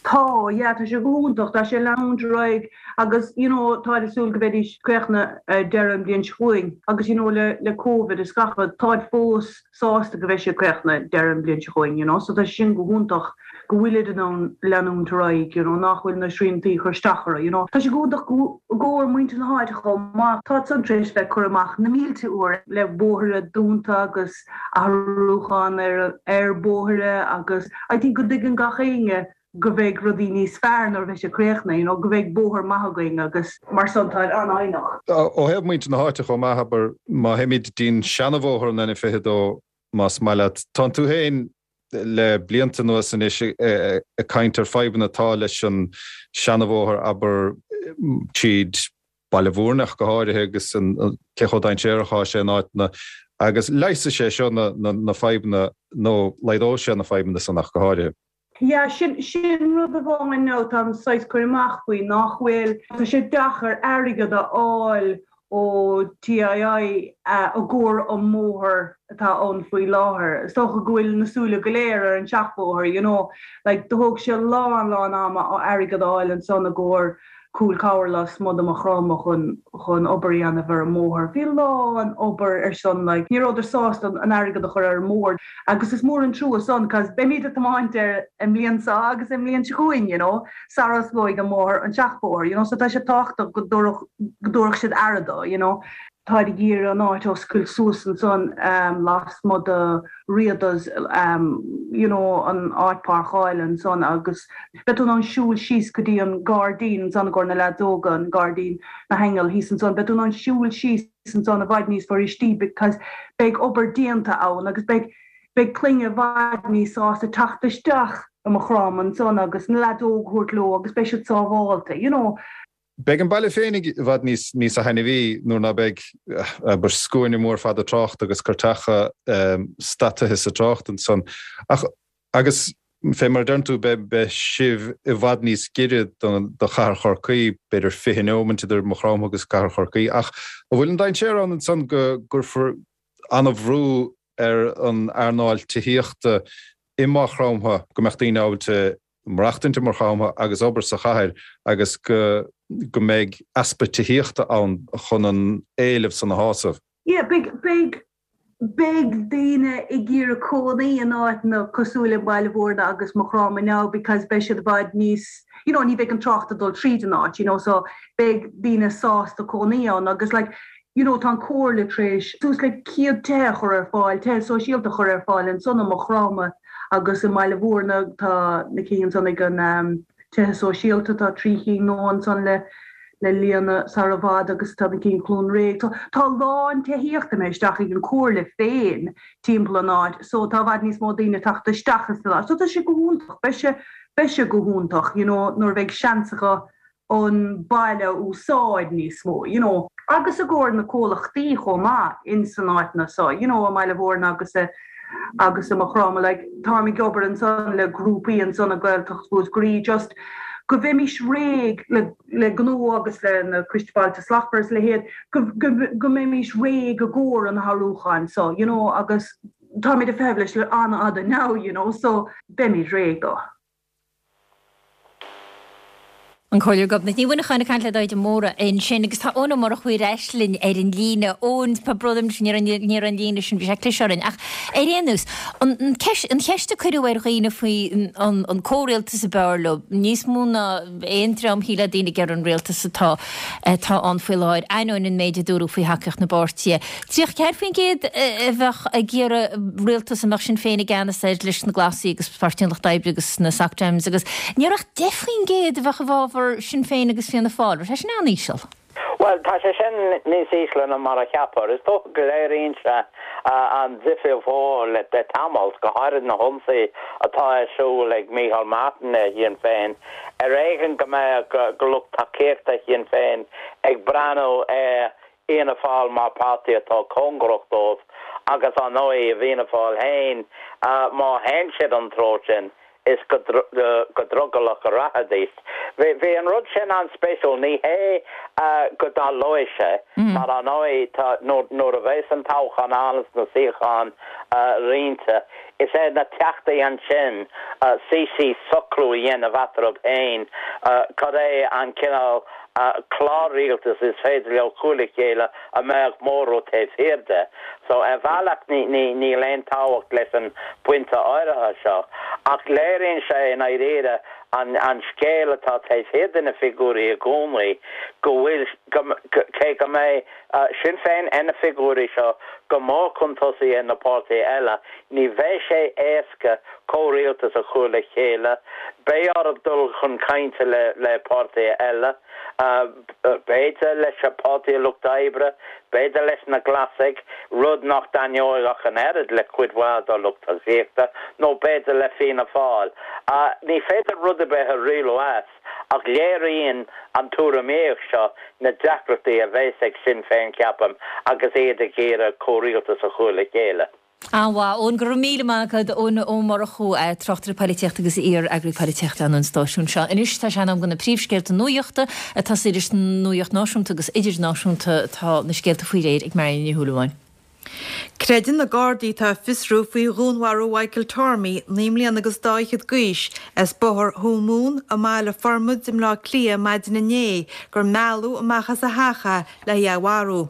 Tá, yeah, tá sé go hiontach, tá sé ag leanúint ar aghaidh agus you know táid ag súil go mbeidís críochnaithe deireadh an bhliain seo chugainn agus you know le le Covid is gach rud, táid fós sásta go mbeidh sé críochnaithe deireadh an bhliain seo chugainn you know so tá sé sin go hiontach. go bhfuilid in ann leanúint ar aghaidh, you know, nach bhfuil na sriantaí ag cur isteach orthu, you know. Tá sé go hiontach i gcomhair muintir na háite chomh maith. Tá san tar éis bheith curtha amach na mílte uair le bóithre dúnta agus athrúchán ar ar bóithre agus I think go dtuigeann gach éinne go bheidh rudaí níos fearr nuair a bheidh sé críochnaithe, you know, go bheidh bóthar maith againn agus mar san tá an-fhoighneach. Ó thaobh muintir na háite chomh maith, abair, má théimid dtí'n seanabhóthar an N22, más maith leat, tánn tú féin le blianta anuas anois ag caint ar fadhbanna atá leis an seanabhóthar, abair, tríd Baile Mhúirne ach go háirithe agus cé chomh dainséarach atá sé in áiteanna agus leigheasfaidh sé seo na fadhbanna nó laghdóidh sé na fadhbanna san ach go háirithe. Yeah, sin, sin rud amháin now táim saghas cur amach faoi, nach bhfuil, tá sé deacair airgead a fháil ó TII i gcomhair an mbóthar atá ann faoi láthair. Is dócha go bhfuil na súile go léir ar an seachbhóthar, you know. Like, do thóg sé lán, lán ama airgead a fháil ansan i gcomhair Cúil Cabhair lasmuigh de Maigh Chromtha chun, chun obair a dhéanamh ar an mbóthar. Bhí lán obair ar son, like, ní rabhadar sásta an airgead a chur ar an mbóthar agus is mór an trua san 'cause beimid ag tiomáint air an mbliain seo agus an mbliain seo chugainn, you know. sara osclóidh an mbóthar, an seachbhóthar, you know, so tá sé tábhachtach go dtabharfadh, go dtabharfadh siad aire dó, you know. Táid ag iarraidh an áit a oscailt suas ansan lasmuigh de Riada's, you know, an áit páirceála ansan agus beidh tú in ann siúl síos go dtí an gairdín ansan i gcomhair na leaids óga, an gairdín na haingeal thíos ansan, beidh tú in ann siúl síos ansan i bhfad níos fuiristí because beidh obair déanta ann agus beidh, Beidh clainne i bhfad níos sásta teacht isteach i Maigh Chromtha ansan agus na leaids óga a thabhairt leo agus beidh siad sábhálta, you know. Beidh an baile féinig i bhfad níos níosa thaitneamhaí nuair ná beidh, abair, scuaine mór fada tráchta agus cairteacha stadtaithe sa trácht ansan. Ach, agus fé mar a deireann tú, beidh, beidh sibh i bhfad níos giorra do, do chathair Chorcaí, b'fhéidir 20 neomant idir Maigh Chromtha agus cathair Chorcaí. Ach an bhfuil an dainséar ann ansan go gcuirfear an-bhrú ar an earnáil tithíochta i Maigh Chromtha, go mbeadh daoine ábalta maireachtaint i Maigh Chromtha agus obair sa chathair agus go go mbeidh easpa tithíochta ann chun an éileamh san a shásamh. Yeah, beidh, beidh, beidh daoine ag iarraidh cónaí in áiteanna cosúil le Baile Mhúirne agus Maigh Chromtha now because beidh siad i bhfad níos, you know, ní bheidh an trácht ag dul tríd an áit, you know, so beidh daoine sásta cónaí ann agus like, you know tá an Comhairle tar éis suas le 100 tithe a chur ar fáil, tithe sóisialta a chur ar fáil ansan i Maigh Chromtha agus i mBaile Mhúirne tá na cinn ansan ag an tithe sóisialta, tá 3 chinn nua ansan le le líonadh sara i bhfad agus tá na cinn Chluain Réidh. So tá a lán tithíochta imithe isteach ag an Comhairle féin timpeall an áit so tá i bhfad níos mó daoine ag teacht isteach ins an áit. So tá sé go hiontach, beidh sé, beidh sé go hiontach you know nuair a bheidh seans acu an baile a úsáid níos mó, you know. Agus i gcomhair na comhlachtaí chomh maith ins an áiteanna so, you know, i mBaile Mhúirne agus i, agus i Maigh Chromtha, like, táim ag obair ansan le grúpaí ansan i Gaeltacht Mhúscraí just. Go mbeimis réidh le le gnó agus le na Coiste Bailte Slachtmhara is a leithéid, go go go mbeimis réidh i gcomhair an athrúcháin so, you know, agus táimid ag feitheamh leis le an-fhada now, you know, so beimid réidh dó. An Comhairleoir Gobnait Ní Mhuineacháin ag caint le Daithí de Mórdha ansin agus tá Eoin Ó Murchú ar ais linn ar an líne. Eoin, tá brón orm ní raibh an líne sin, bhí sé ag cliseadh orainn. Ach ar aon nós, an an cheist a cuireadh ar dhaoine faoi an an comhrialtas ab fhearr leo, níos mó ná aon dream shílfeá daoine ag iarraidh an rialtas atá atá ann faoi láthair, ainneoin an méid a dúradh faoi thacaíocht na bpáirtithe. 34% a bheadh ag iarraidh rialtas a mbeadh Sinn Féin i gceannas air leis na Glasaigh agus Páirtí an Lucht Oibre agus na Soc Dems agus ní raibh ach 10% a bheadh i bhfabhar Sinn Féin agus Fianna Fáil. Raibh sé sin an-íseal. Bhuel, tá sé sin níos ísle ná mar a cheapfá. Is dócha go léiríonn sé an difríocht mhór le tamall, go háirid na hionsaí atá ar siúl ag Micheál Martin ar Shinn Féin. Ar éigean go mbeadh lucht tacaíochta Shinn Féin ag breathnú ar Fhianna Fáil mar páirtí atá cóngarach dóibh agus, ar ndóigh, i bhFianna Fáil féin, má théann siad an treo sin, is go drogallach a rachaidís. Bhí an rud sin an-spéisiúil. Ní hé go dtarlóidh sé, mar, ar ndóigh, tá, nuair a bheas an toghchán ann is na suíocháin roinnte, is ar na Teachtaí ansin suí síos socrú a dhéanamh eatarthu féin cad é an cineál clár rialtais is féidir leo cur le chéile a mbeadh móramh taobh thiar de. So, ar bhealach níl aon tábhacht leis an bpointe áirithe seo, ach léiríonn sé i ndáiríre an scéal atá taobh thiar de na figiúirí i gcónaí, go bhfuil, cé go mbeidh Sinn Féin ar na figiúirí seo go mór chun tosaigh ar na páirtithe eile, ní bheidh sé éasca comhrialtas a chur le chéile. Beidh orthu dul chun cainte le páirtithe eile, b'fhéidir leis an Páirtí Lucht Oibre, b'fhéidir leis na Glasaigh, rud nach dtaitneoidh ach an oiread le cuid mhaith dá lucht tacaíochta, nó b'fhéidir le Fianna Fáil. Ní féidir rud ar bith a rialú as, ach léiríonn an tuairimíocht seo na deacrachtaí a bheas ag Sinn Féin, ceapaim, agus iad ag iarraidh comhrialtas a chur le chéile. An-mhaith, Eoin. Go raibh míle maith agat, Eoin Ó Murchú, tráchtaire poilitíochta agus iar-eagraí poilitíochta an stáisiúin seo. Anois tá sé in am do na príomhscéalta nuachta. Ag tosaí leis an nuacht náisiúnta agus idirnáisiúnta tá na scéalta faoi réir ag Marion Ní Shúilleabháin. Creideann na Gardaí atá ag fiosrú faoi dhúnmharú Mhichael Tormey, 9 mbliana agus dá fhichead d'aois, as Bóthar Thuamhumhan i mBaile Formaid i mBleá Cliath maidin inné gur mealladh amach as a theach é le hé a mharú.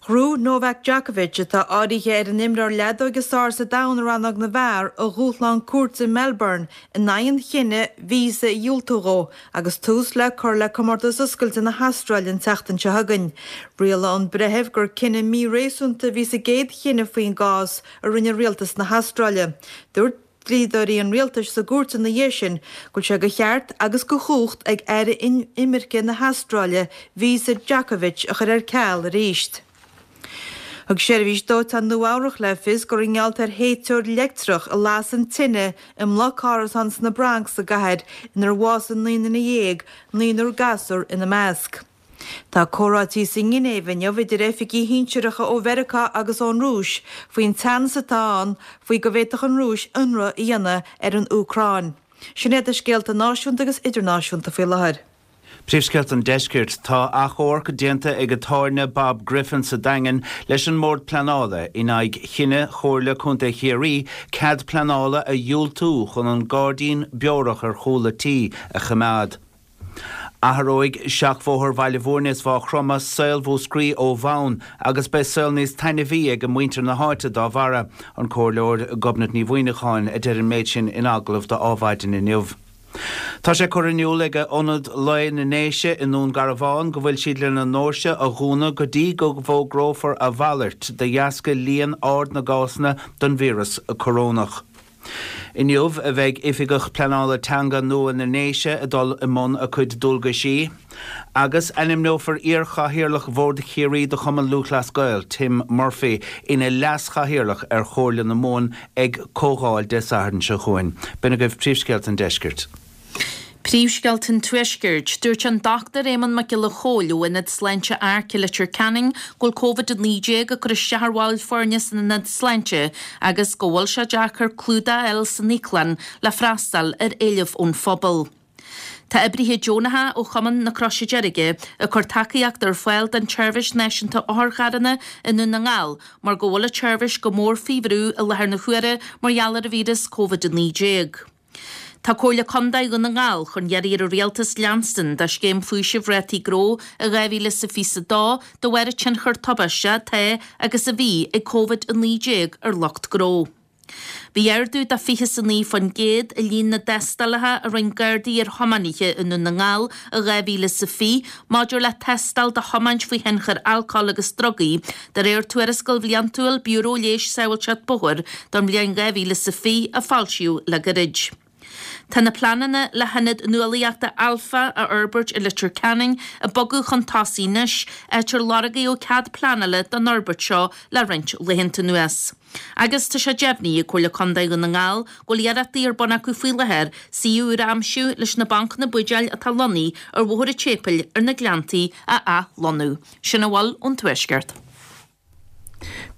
Ghnóthaigh Novak Djokovic, atá áirithe ar an imreoir leadóige is fearr sa domhan i rannóg na bhfear, a dhúshlán cúirte i Melbourne in aghaidh an chinnidh víosa a dhiúltú dhó agus tús le cur le Comórtas Oscailte na hAstráile an tseachtain seo chugainn. Rialaigh an breitheamh gur cinneadh míréasúnta a bhí sa gcéad chinneadh faoin gcás a rinne rialtas na hAstráile. Dúirt. Dlíodóirí an rialtais sa gcúirt ina dhiaidh sin go bhfuil sé de cheart agus de chumhacht ag Aire Imirce na hAstráile víosa Djokovic a chur ar ceal arís. Thug Seirbhís Dóiteáin Nua-Eabhrac le fios gur i ngeall ar théiteoir leictreach a las an tine i mbloc árasán sna Bronx sa gcathair inar bhásaigh 19 nduine, naonúr gasúr ina measc. Tá comhráití sa nGinéiv inniu idir oifigigh shinsearacha ó Mheiriceá agus ón Rúis faoin teannas atá ann faoi go bhféadfadh an Rúis ionradh a dhéanamh ar an Úcráin. Sin iad na scéalta náisiúnta agus idirnáisiúnta faoi láthair. Príomhscéalta an Deiscirt. Tá achomharc déanta ag atáirne Bob Griffin sa Daingean leis an mBord Pleanála in aghaidh chinneadh Chomhairle Contae Chiarraí cead pleanála a dhiúltú chun an gairdín beorach ar chúl a tí a choimeád. Athróidh seachbhóthar Bhaile Bhúirne is Mhaigh Chromtha saol Mhúscraí ó bhonn agus beidh saol níos taitneamhaí ag muintir na háite dá bharra, an Comhairleoir Gobnait Ní Mhuimhneacháin a deir an méid sin in agallamh do Adhmhaidin inniu. Tá sé curtha in iúl ag Ionad Lae na nDéise i nDún Garbhán go bhfuil siad lena ndoirse a dhúnadh go dtí go bhfógrófar a mhalairt de dheasca líon ard na gcásanna den víreas corónach. Inniu a bheidh Oifigeach Pleanála Teanga nua na nDéise ag dul i mbun a cuid dualgaisí, agus ainmneofar iar-chathaoirleach Bhord Chiarraí de Chumann Lúthchleas Gael, Tim Murphy, ina leas-chathaoirleach ar Chomhairle na Mumhan ag comhdháil Dé Sathairn seo chugainn. B'in agaibh príomhscéalta an deiscirt. Príomhscéalta an Tuaiscirt. Dúirt an Dr Éamonn Mac Giolla Chóill ó Ionad Sláinte Arc i Leitir Ceanainn go bhfuil Covid-19 ag cur isteach ar bhaill foirne san ionad sláinte agus go bhfuil sé deacair clúdach a fháil san íoclann le freastal ar éileamh ón phobal. Tá oibrithe deonacha ó Chumann na Croise Deirge ag cur tacaíocht ar fáil don tSeirbhís Náisiúnta Otharcharranna i nDún na nGall mar go bhfuil an tseirbhís go mór faoi bhrú i láthair na huaire mar gheall ar an víreas Covid-19. Tá Comhairle Contae Dhún na nGall chun iarraidh ar an Rialtas leanstan de scéim faoisimh rátaí gnó i 2022 de bharr an tionchar tubaisteach atá agus a bhí ag Covid-19 ar lucht gnó. Bhí ardú de 29% i líon na dtástálacha a rinne Gardaí ar thiománaithe i nDún na nGall i 2020 maidir le tástáil do thiomáint faoi thionchar alcóil agus drugaí, de réir tuarascáil bhliantúil Biúró Leighis Sábháilteacht Bóthair don bhliain 2020 a foilsíodh le gairid. Tá na pleananna le hIonad Nuálaíochta Alpha a fhorbairt i Leitir Ceanainn ag bogadh chun tosaigh anois, áit ar lorgaíodh cead pleanála don fhorbairt seo le roinnt laethanta anuas. Agus tá sé deimhnithe ag Comhairle Contae Dhún na nGall go bhfuil iarrachtaí ar bun acu faoi láthair suíomh úr a aimsiú leis na bancanna buidéil atá lonnaithe ar Bhóthar an tSéipéil ar na Gleanntaí a athlonnú. Sin a bhfuil ón Tuaisceart.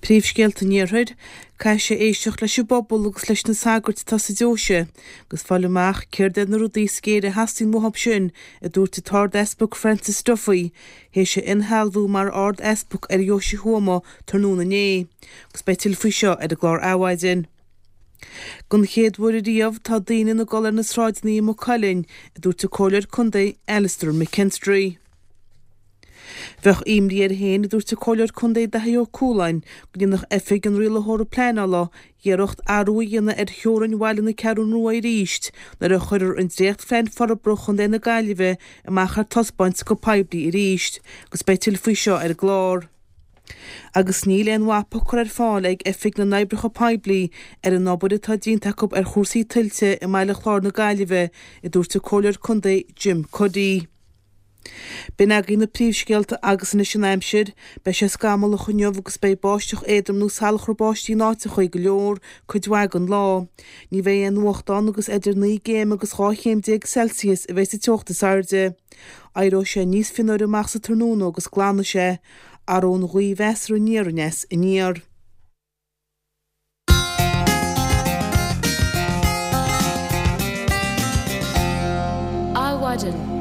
Príomhscéalta an Iarthair, Caithfidh sé éisteacht leis an bpobal agus leis na sagairt atá sa deoise agus fáil amach céard iad na rudaí is géire a theastaíonn uathu sin, a dúirt an tArd-Easpag Francis Duffy, théis a inshealbhú mar Ard-Easpag ar Dheoise Thuama tráthnóna inné. Agus beidh tuilleadh faoi seo ar an gclár Adhmhaidin. Don chéad uair ariamh tá daoine ag dul ar na sráideanna i Maigh Cuilinn, a dúirt an Comhairleoir Contae Alastair McKinstry. Bheadh imní air féin, a dúirt an Comhairleoir Contae Daithí Ó Cualáin, go ndéanfadh Oifig an Rialaitheora Pleanála iarracht athrú a dhéanamh ar theorainn bhaile na Ceathrún Rua arís nuair a chuirfear an dréachtphlean forbartha Chontae na Gaillimhe amach ar taispeáint go poiblí arís agus beidh tuilleadh faoi seo ar an gclár. Agus níl aon mhapa curtha ar fáil ag Oifig na nOibreacha Poiblí ar an obair atá déanta acu ar chúrsaí tuilte i mBaile Chláir na Gaillimhe, a dúirt an Comhairleoir Contae Jim Cuddy. B'in agaibh na príomhscéalta agus anois an aimsir. Beidh sé scamallach inniu agus beidh báisteach éadrom nó salachar báistí in áiteachaí go leor cuid mhaith den lá. Ní bheidh aon fhuacht ann agus idir 9 gcéim agus 12 chéim Celsius a bheidh sa teocht is airde. Éireoidh sé níos fionnuaire amach sa tráthnóna agus glanfaidh sé. Athróidh an ghaoth mheasartha aniar aneas aniar. Adhmhaidin.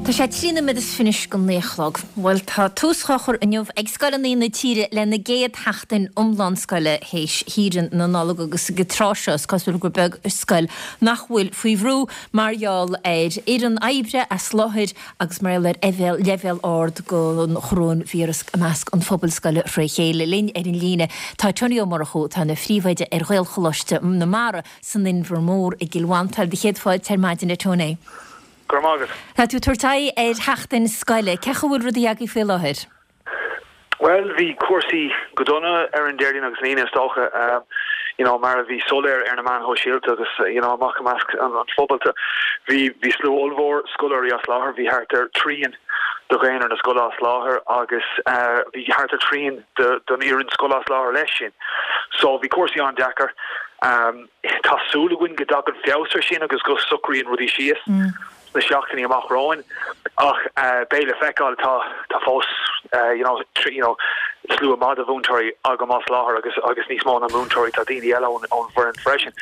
Tá sé 13 nóiméad is fiche go naoi a chlog. Bhuel, tá tús á chur inniu ag scoileanna na tíre lena gcéad sheachtain iomlán scoile théis shaoire na Nollag agus ag an tráth seo is cosúil gur beag scoil nach bhfuil faoi bhrú mar gheall ar fhoireann oibre as láthair agus mar gheall ar leibhéal ard den choróinvíreas i measc an phobail scoile fré chéile. Linn ar an líne tá Tony Ó Murchú, atá ina phríomhoide ar Ghaelcholáiste na Mara san Inbhear Mór i gCill Mhantáin. Do chéad fáilte ar maidin, a Tony. Go raibh maith agat. Tá tú ag tabhairt aghaidh ar sheachtain scoile. Cén chaoi a bhfuil rudaí agaibh faoi láthair? Bhuel, bhí cúrsaí go dona ar an Déardaoin agus an Aoine is dócha, you know, mar a bhí soiléir ar na meáin shóisialta agus, you know, amach i measc an phobail. Bhí, bhí slua ollmhór scoláirí as láthair, bhí thart ar trian de dhaonra na scoile as láthair agus bhí thart ar trian de, den fhoireann scoile as láthair leis sin. So bhí cúrsaí an-deacair. Tá súil againn go dtagann feabhas ar sin agus go socraíonn rudaí síos. sna seachtainí amach romhainn ach beidh le feiceáil. Tá tá fós you know you know slua maith de mhúinteoirí agam as láthair agus agus níos mó ná múinteoirí tá daoine eile ón ón bhfoireann freisin.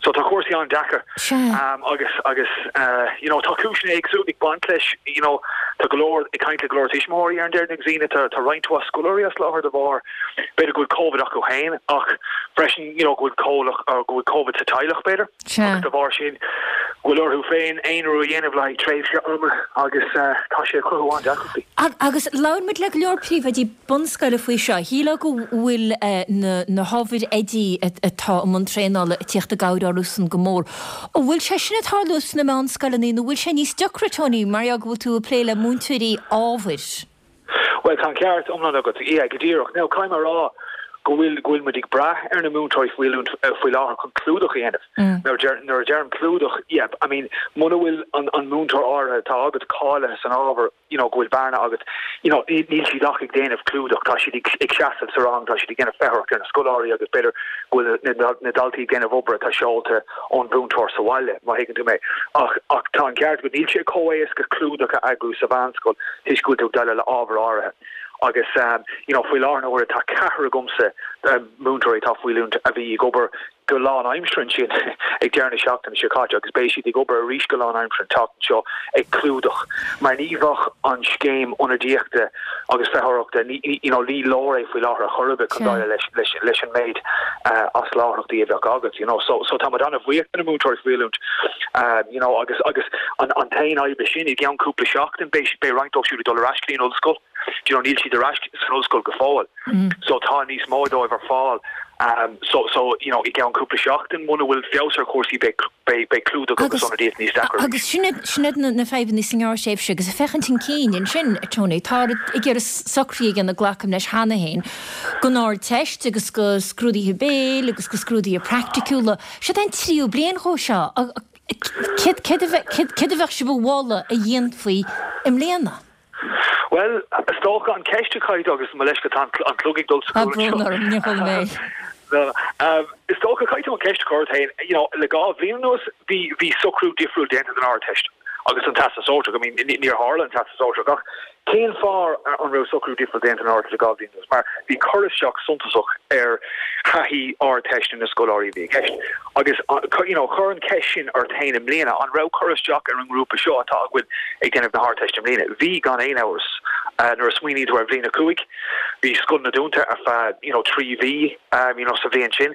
So tá cúrsaí an-deacair agus agus you know tá cúiseanna éagsúla ag baint leis you know tá go leor ag caint le go leor tuismitheoirí ar an Déardaoin agus Aoine tá tá roinnt mhaith scoláirí as láthair de bharr b'fhéidir go bhfuil Covid acu féin ach freisin you know go bhfuil comhlach go bhfuil Covid sa teaghlach b'fhéidir. Sea. Agus de bharr sin, go bhfuil orthu féin aonrú a dhéanamh le haghaidh tréimhse ama agus tá sé ag cruthú an-deacrachtaí. Agus labhair muid le go leor príomhoidí bunscoile faoi seo. Shílfeá go bhfuil na hábhair oidí atá i mbun traenála ag tíocht i gcabhair orthusan go mór. An bhfuil sé sin ag tarlú sna meánscoileanna nó bhfuil sé níos deacra, Tony, mar gheall go bhfuil tú ag plé le múinteoirí ábhair? Bhuel, tá an ceart iomlán agat. Yeah, go díreach. Now, caithfidh mé a rá go bhfuil, go bhfuil muid ag brath ar na múinteoirí faoi oiliúint faoi láthair chun clúdach a dhéanamh. Now, deir, nuair a deirim clúdach, yeah, I mean, muna bhfuil an, an múinteoir áirithe atá agat cáilithe san ábhar, you know, go bhfuil bearna agat, you know, níl, níl siad ach ag déanamh clúdach, tá siad ag, ag seasamh sa rang, tá siad ag déanamh feitheoireacht ar na scoláirí agus b'fhéidir go bhfuil na, na, na daltaí ag déanamh obair atá seolta ón mhúinteoir sa bhaile, má thuigeann tú mé. Ach, ach tá an ceart agat, níl sé chomh éasca clúdach a eagrú sa mheánscoil toisc go bhfuil tú ag déileáil le ábhar áirithe. Agus, you know, faoi láthair na huaire tá ceathrar agamsa, múinteoirí atá faoi oiliúint a bhí ag obair. go lánaimseartha ansin ag deireadh na seachtaine seo caite agus beidh siad ag obair arís go lánaimseartha an tseachtain seo ag clúdach mar ní bheadh an scéim ionadaíochta agus feitheoireachta, you know, ní leor é faoi láthair ar chor ar bith chun déileáil leis, leis, leis an méid as láithreachtaí a bheadh agat, you know. So, so tá muid an-bhuíoch de na múinteoirí faoi oiliúint, you know, agus, agus an, an t-aon fhadhb leis sin, i gceann cúpla seachtain beidh, beidh roinnt dóibh siúd ag dul ar ais go dtí an ollscoil. Do you know, níl siad ar ais san ollscoil go fóill. So tá níos mó dóibh ar fáil. So, so, you know, i gceann cúpla seachtain, muna bhfuil feabhas ar chúrsaí, beidh, beidh, beidh clúdach agus ionadaíocht níos deacra arís. Agus sin iad, sin iad na, na fadhbanna sa ngearrthréimhse agus ag féachaint chun cinn ansin, a Tony, tá ag iarraidh socruithe a dhéanamh, glacaim leis cheana féin, don Ardteist agus do scrúduithe béil agus do scrúduithe praiticiúla. Siod é an tríú bliain dhó seo. Céard, céard a bheadh, céard a bheadh sibh a mholadh a dhéanfaí i mbliana? Bhuel, is dócha an cheist a chaithfidh tú, agus mo leithscéal tá an clog ag dul sa Tá brón orm, níor chuala mé. No, no. Is dócha caithfidh tú an cheist a chur ort féin, you know, le 2 bhliain anuas bhí, bhí socrú difriúil déanta don Ardteist agus don Teastas Sóisearach. I mean, níor tharla an Teastas Sóisearach ach cén fáth an raibh socrú difriúil déanta don Ardteist le 2 bhliain anuas? Mar bhí cur isteach suntasach ar thaithí Ardteiste na scoláirí a bhí i gceist. Agus, you know, cuir an cheist sin ort féin i mbliana, an raibh cur isteach ar an ngrúpa seo atá againn ag déanamh na hArdteiste i mbliana? Bhí, gan aon amhras. Nuair a smaoiníonn tú ar bhliain 5, bhí scoileanna dúnta ar feadh, you know, 3 mhí, you know, sa bhliain sin.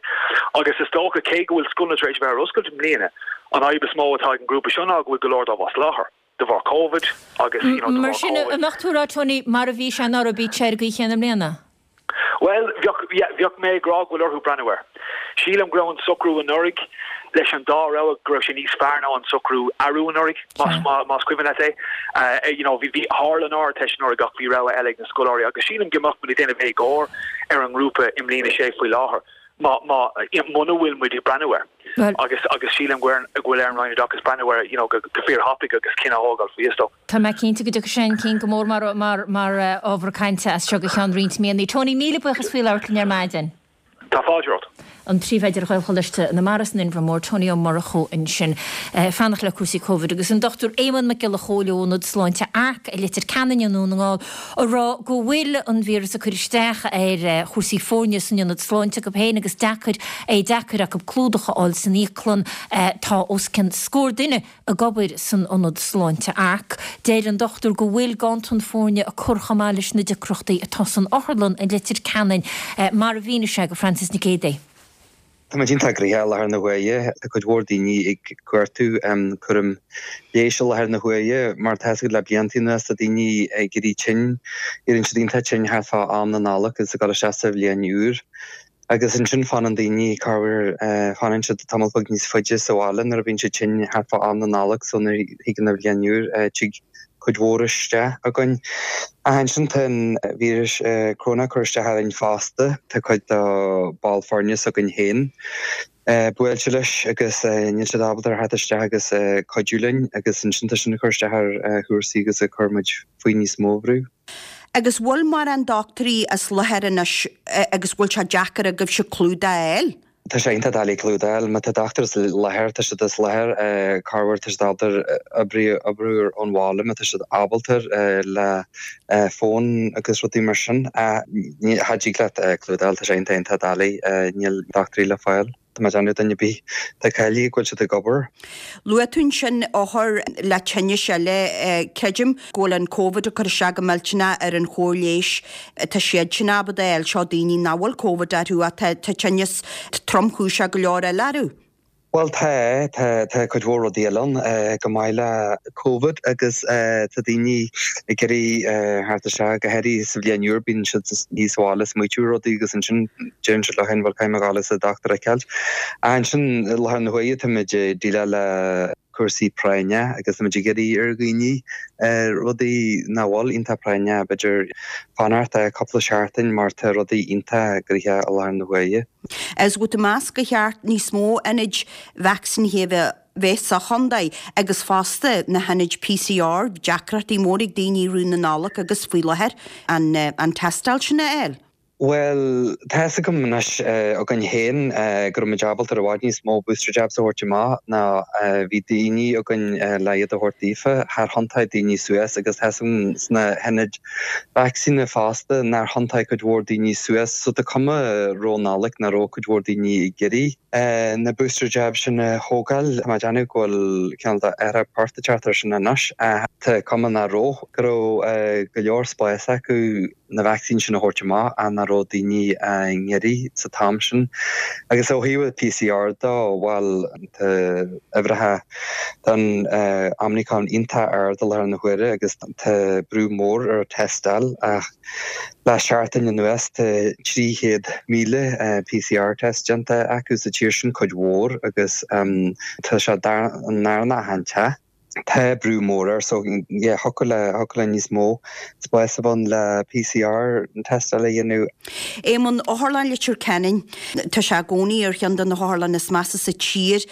Agus is dócha, cé go bhfuil scoileanna tar éis a bheith ar oscailt i mbliana, an fhadhb is mó atá ag an ngrúpa seo ná go bhfuil go leor dóibh as láthair de bharr Covid agus, you know, de Mar bharr sin, Covid. an mbeadh tú ag rá, Tony, mar a bhí sé anuraidh, bíodh sé ar an gcaoi chéanna i mbliana? Bhuel, bheadh, yeah, bheadh mé ag rá go bhfuil orthu breathnú air. Sílim go raibh an socrú anuraidh leis an dá rogha, go raibh sé níos fearr ná an socrú arú anuraidh, más, más cuimhin leat é. You know, bhí, bhí, tharla an Ardteist anuraidh ach bhí rogha eile ag na scoláirí agus sílim go mbeadh muid ag déanamh éagóir ar an ngrúpa i mbliain a sé faoi láthair má, má, muna bhfuil muid ag breathnú air. Agus, agus sílim go bhfuil ar an Roinn Oideachais breathnú air, you know, go, go fíor-thapaidh agus cinneadh a thógáil faoi, is dóigh. Tá mé cinnte go dtiocfaidh sé chun cinn go mór mar mar mar ábhar cainte as seo go ceann roinnt míonna. Tony, míle buíochas faoi labhairt linn ar maidin. Tá fáilte romhat. An Príomhoide ar Ghaelcholáiste na Mara san Inbhear Mór, Tony Ó Murchú ansin. Fanacht le cúrsaí Covid agus an Dr Éamonn Mac Giolla Chóill ó Ionad Sláinte Arc i Leitir Ceanainn i nDún na nGall ag rá go bhfuil an víreas ag cur isteach ar chúrsaí foirne san ionad sláinte acu féin agus deacair é deacair acu clúdach a fháil san íoclann. Tá os cionn scór duine ag obair san ionad sláinte Arc. Deir an dochtúir go bhfuil ganntan foirne ag cur chomh maith leis na deacrachtaí atá san otharlann i Leitir Ceanainn, mar a mhínigh sé do Frances Nic Géadaigh. Tá muid iontach gnoitheach i láthair na huaire. Tá cuid mhór daoine ag cuartú cúram leighis i láthair na huaire. Mar tá a fhios agat le blianta anuas tá daoine ag éirí tinn, éiríonn siad iontach tinn thart fá am na Nollag agus ag dul isteach sa bhliain úr. Agus ansin fanann daoine, corruair, fanann siad tamall beag níos faide sa bhaile nuair a bhíonn siad tinn thart fá am na Nollag so nuair a thigeann an bhliain úr tig cuid mhór isteach againn. Ach ansin tá an víreas Corona ag cur isteach orainn fosta, tá cuid de ball foirne s'againn féin buailte leis agus níl siad ábalta ar theacht isteach agus cuidiú linn agus ansin tá sin ag cur isteach ar chúrsaí agus ag cur muid faoi níos mó brú. Agus bhfuil mórán dochtúirí as láthair anois agus bhfuil sé deacair agaibhse clúdach a fháil? Tá sé iontach doiligh clúdach a fháil. Má tá dochtúir as láthair, tá siad as láthair. Corruair tá siad ábalta oibriú oibriú ón bhaile má tá siad ábalta le fón agus rudaí mar sin. Cha dtig leat clúdach a fháil, tá sé iontach iontach doiligh. Níl dochtúirí le fáil. Tá mé ag déanamh duine ar bith atá cáilithe go bhfuil siad ag obair. Luaigh tú ansin othair le tinnis eile. Creidim go bhfuil an Covid ag cur isteach go millteanach ar an chóir leighis atá siadsan ábalta a fháil. Seo daoine nach bhfuil Covid orthu ach tá tinneas tromchúiseach go leor eile orthu. Bhuel tá, tá, tá cuid mhór rudaí eile ann chomh maith le Covid agus tá daoine ag iarraidh theacht isteach, go háirithe sa bhliain úr, bíonn siad thíos sa bhaile ag smaoitiú ar rudaí agus ansin deireann siad leo féin bhuel caithfidh mé dhul is an dochtúir a fheiceáil. Ansin i láthair na huaire táimid ag déileáil le cúrsaí práinne agus táimid ag iarraidh ar dhaoine rudaí nach bhfuil iontach práinneach b'fhéidir fanacht cúpla seachtain mar tá rudaí iontach gnoitheach i láthair na huaire. Is bhfuil tú ag meas gur cheart níos mó ionaid vacsaínithe a bheith bheith sa chontae agus fosta na hionaid PCR, deacrachtaí mór ag daoine i rith na Nollag agus faoi láthair an an tástáil sin a fháil. Bhuel, tá fhios agam anois againn féin go raibh muid ábalta ar i bhfad níos mó booster jabs a thabhairt amach ná bhí daoine againn le iad a thabhairt daofa. Char thiontaigh daoine suas agus tá fhios agam sna hionaid vacsaíne fosta nár thiontaigh cuid mhór daoine suas so tá cuma roimh Nollaig nach raibh cuid mhór daoine ag iarraidh na booster jabs sin a thógáil. Tá mé ag déanamh go bhfuil cineál de athrú poirt ag teacht air sin anois ach tá cuma nach raibh, go raibh go leor spáis acu. na vacsaíní sin a thabhairt amach ach nach raibh daoine á n-iarraidh sa t-am sin. Agus ó thaobh PCR de, bhuel, tá uimhreacha don Omicron iontach ard i láthair na huaire agus tá brú mór ar tástáil ach le seachtain anuas tá 300,000 PCR test déanta acu sa tír sin, cuid mhór, agus tá sé an darna achan teach. Tá brú mór air so yeah thiocfadh le thiocfadh le níos mó spáis a bheith ann le PCR tástáil a dhéanamh. Éamonn, Otharlann Leitir Ceanainn, tá sé i gcónaí ar cheann de na hotharlanna is measa sa tír.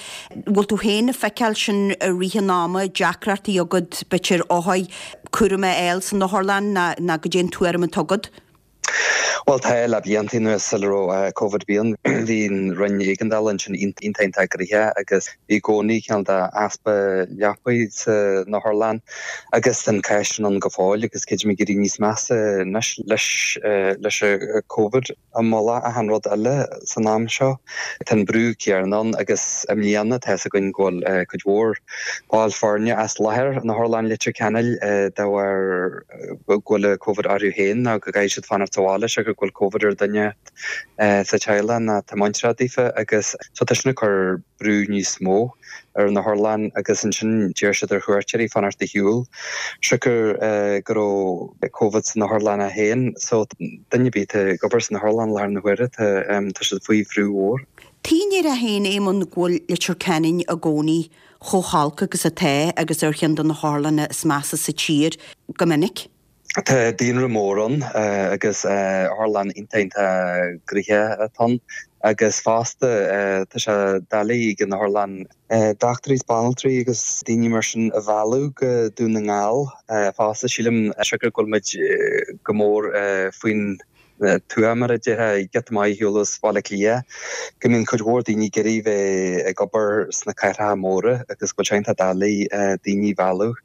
Bhfuil tú féin ag feiceáil sin i rith an ama, deacrachtaí agat b'fhéidir othair cúram a fháil san otharlann ná goidé an tuairim atá agat? Bhuel tá, le blianta anuas sula raibh Covid bhí an bhí an Roinn Éigeandála ansin iontach iontach gnoitheach agus bhí i gcónaí cineál de easpa leapaí san otharlann agus tá an cás sin ann go fóill agus creidim ag éirí níos measa anois leis leis an Covid i mullach achan rud eile san am seo. Tá an brú céanna ann agus i mbliana tá fhios againn go bhfuil cuid mhór ball foirne as láthair in Otharlann Leitir Ceanainn de bharr go bhfuil Covid orthu féin nó go gcaithfidh siad fanacht sa bhaile siocair go bhfuil Covid ar duine sa teaghlach nó atá muinteartha daofa agus so tá sin ag cur brú níos mó ar an otharlann agus ansin d'iarr siad ar chuairteoirí fanacht ar shiúl siocair go raibh Covid san otharlann féin so duine ar bith atá ag obair san otharlann i láthair na huaire tá tá siad faoi bhrú mhór. An ndéarfá féin Éamonn go bhfuil Leitir Ceanainn i gcónaí chomh holc agus atá agus ar cheann de na hotharlanna is measa sa tír go minic. Tá daonra mór ann agus otharlann iontach iontach gnoitheach atá ann agus fosta tá sé doiligh ag an otharlann dochtúirí is banaltraí agus daoine mar sin a mhealladh go Dún na nGall fosta. Sílim siocair go bhfuil muid go mór faoin tuath, mar a déarfá, giota maith ar shiúl as Baile Átha Cliath, go mbíonn cuid mhór daoine ag iarraidh bheith ag obair sna cathracha móra agus go bhfuil sé iontach doiligh daoine a mhealladh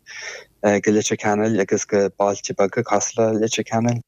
go Leitir Ceanainn agus go bailte beaga cosúil le Leitir Ceanainn.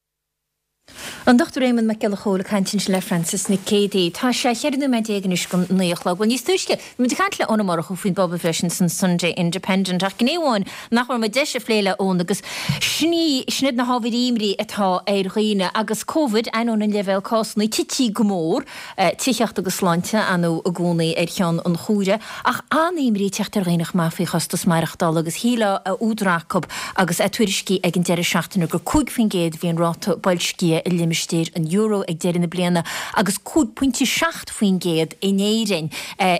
An Dr Éamonn Mac Giolla Chóill ag caint ansin le Frances Nic Géadaigh. Tá sé 14 nóiméad anois go 9 a chlog. Bhuel, níos túisce, bhí muid ag caint le Eoin Ó Murchú faoin bpobalbhreith sin san Sunday Independent ach gné amháin nach bhfuair muid deis a phlé le Eoin agus sin í, sin iad na hábhair imní atá ar dhaoine agus Covid, ainneoin an leibhéal cásanna tití go mór, tithíocht agus sláinte, ar ndóigh i gcónaí ar cheann an chomhaire, ach an-imní ag teacht ar dhaoine chomh maith faoi chostas maireachtála agus shílfeá a údar acu agus é tuairiscithe ag an deireadh seachtaine gur 5% a bhí an ráta boilscithe i limistéar an euro ag deireadh na bliana agus 5.7% in Éirinn,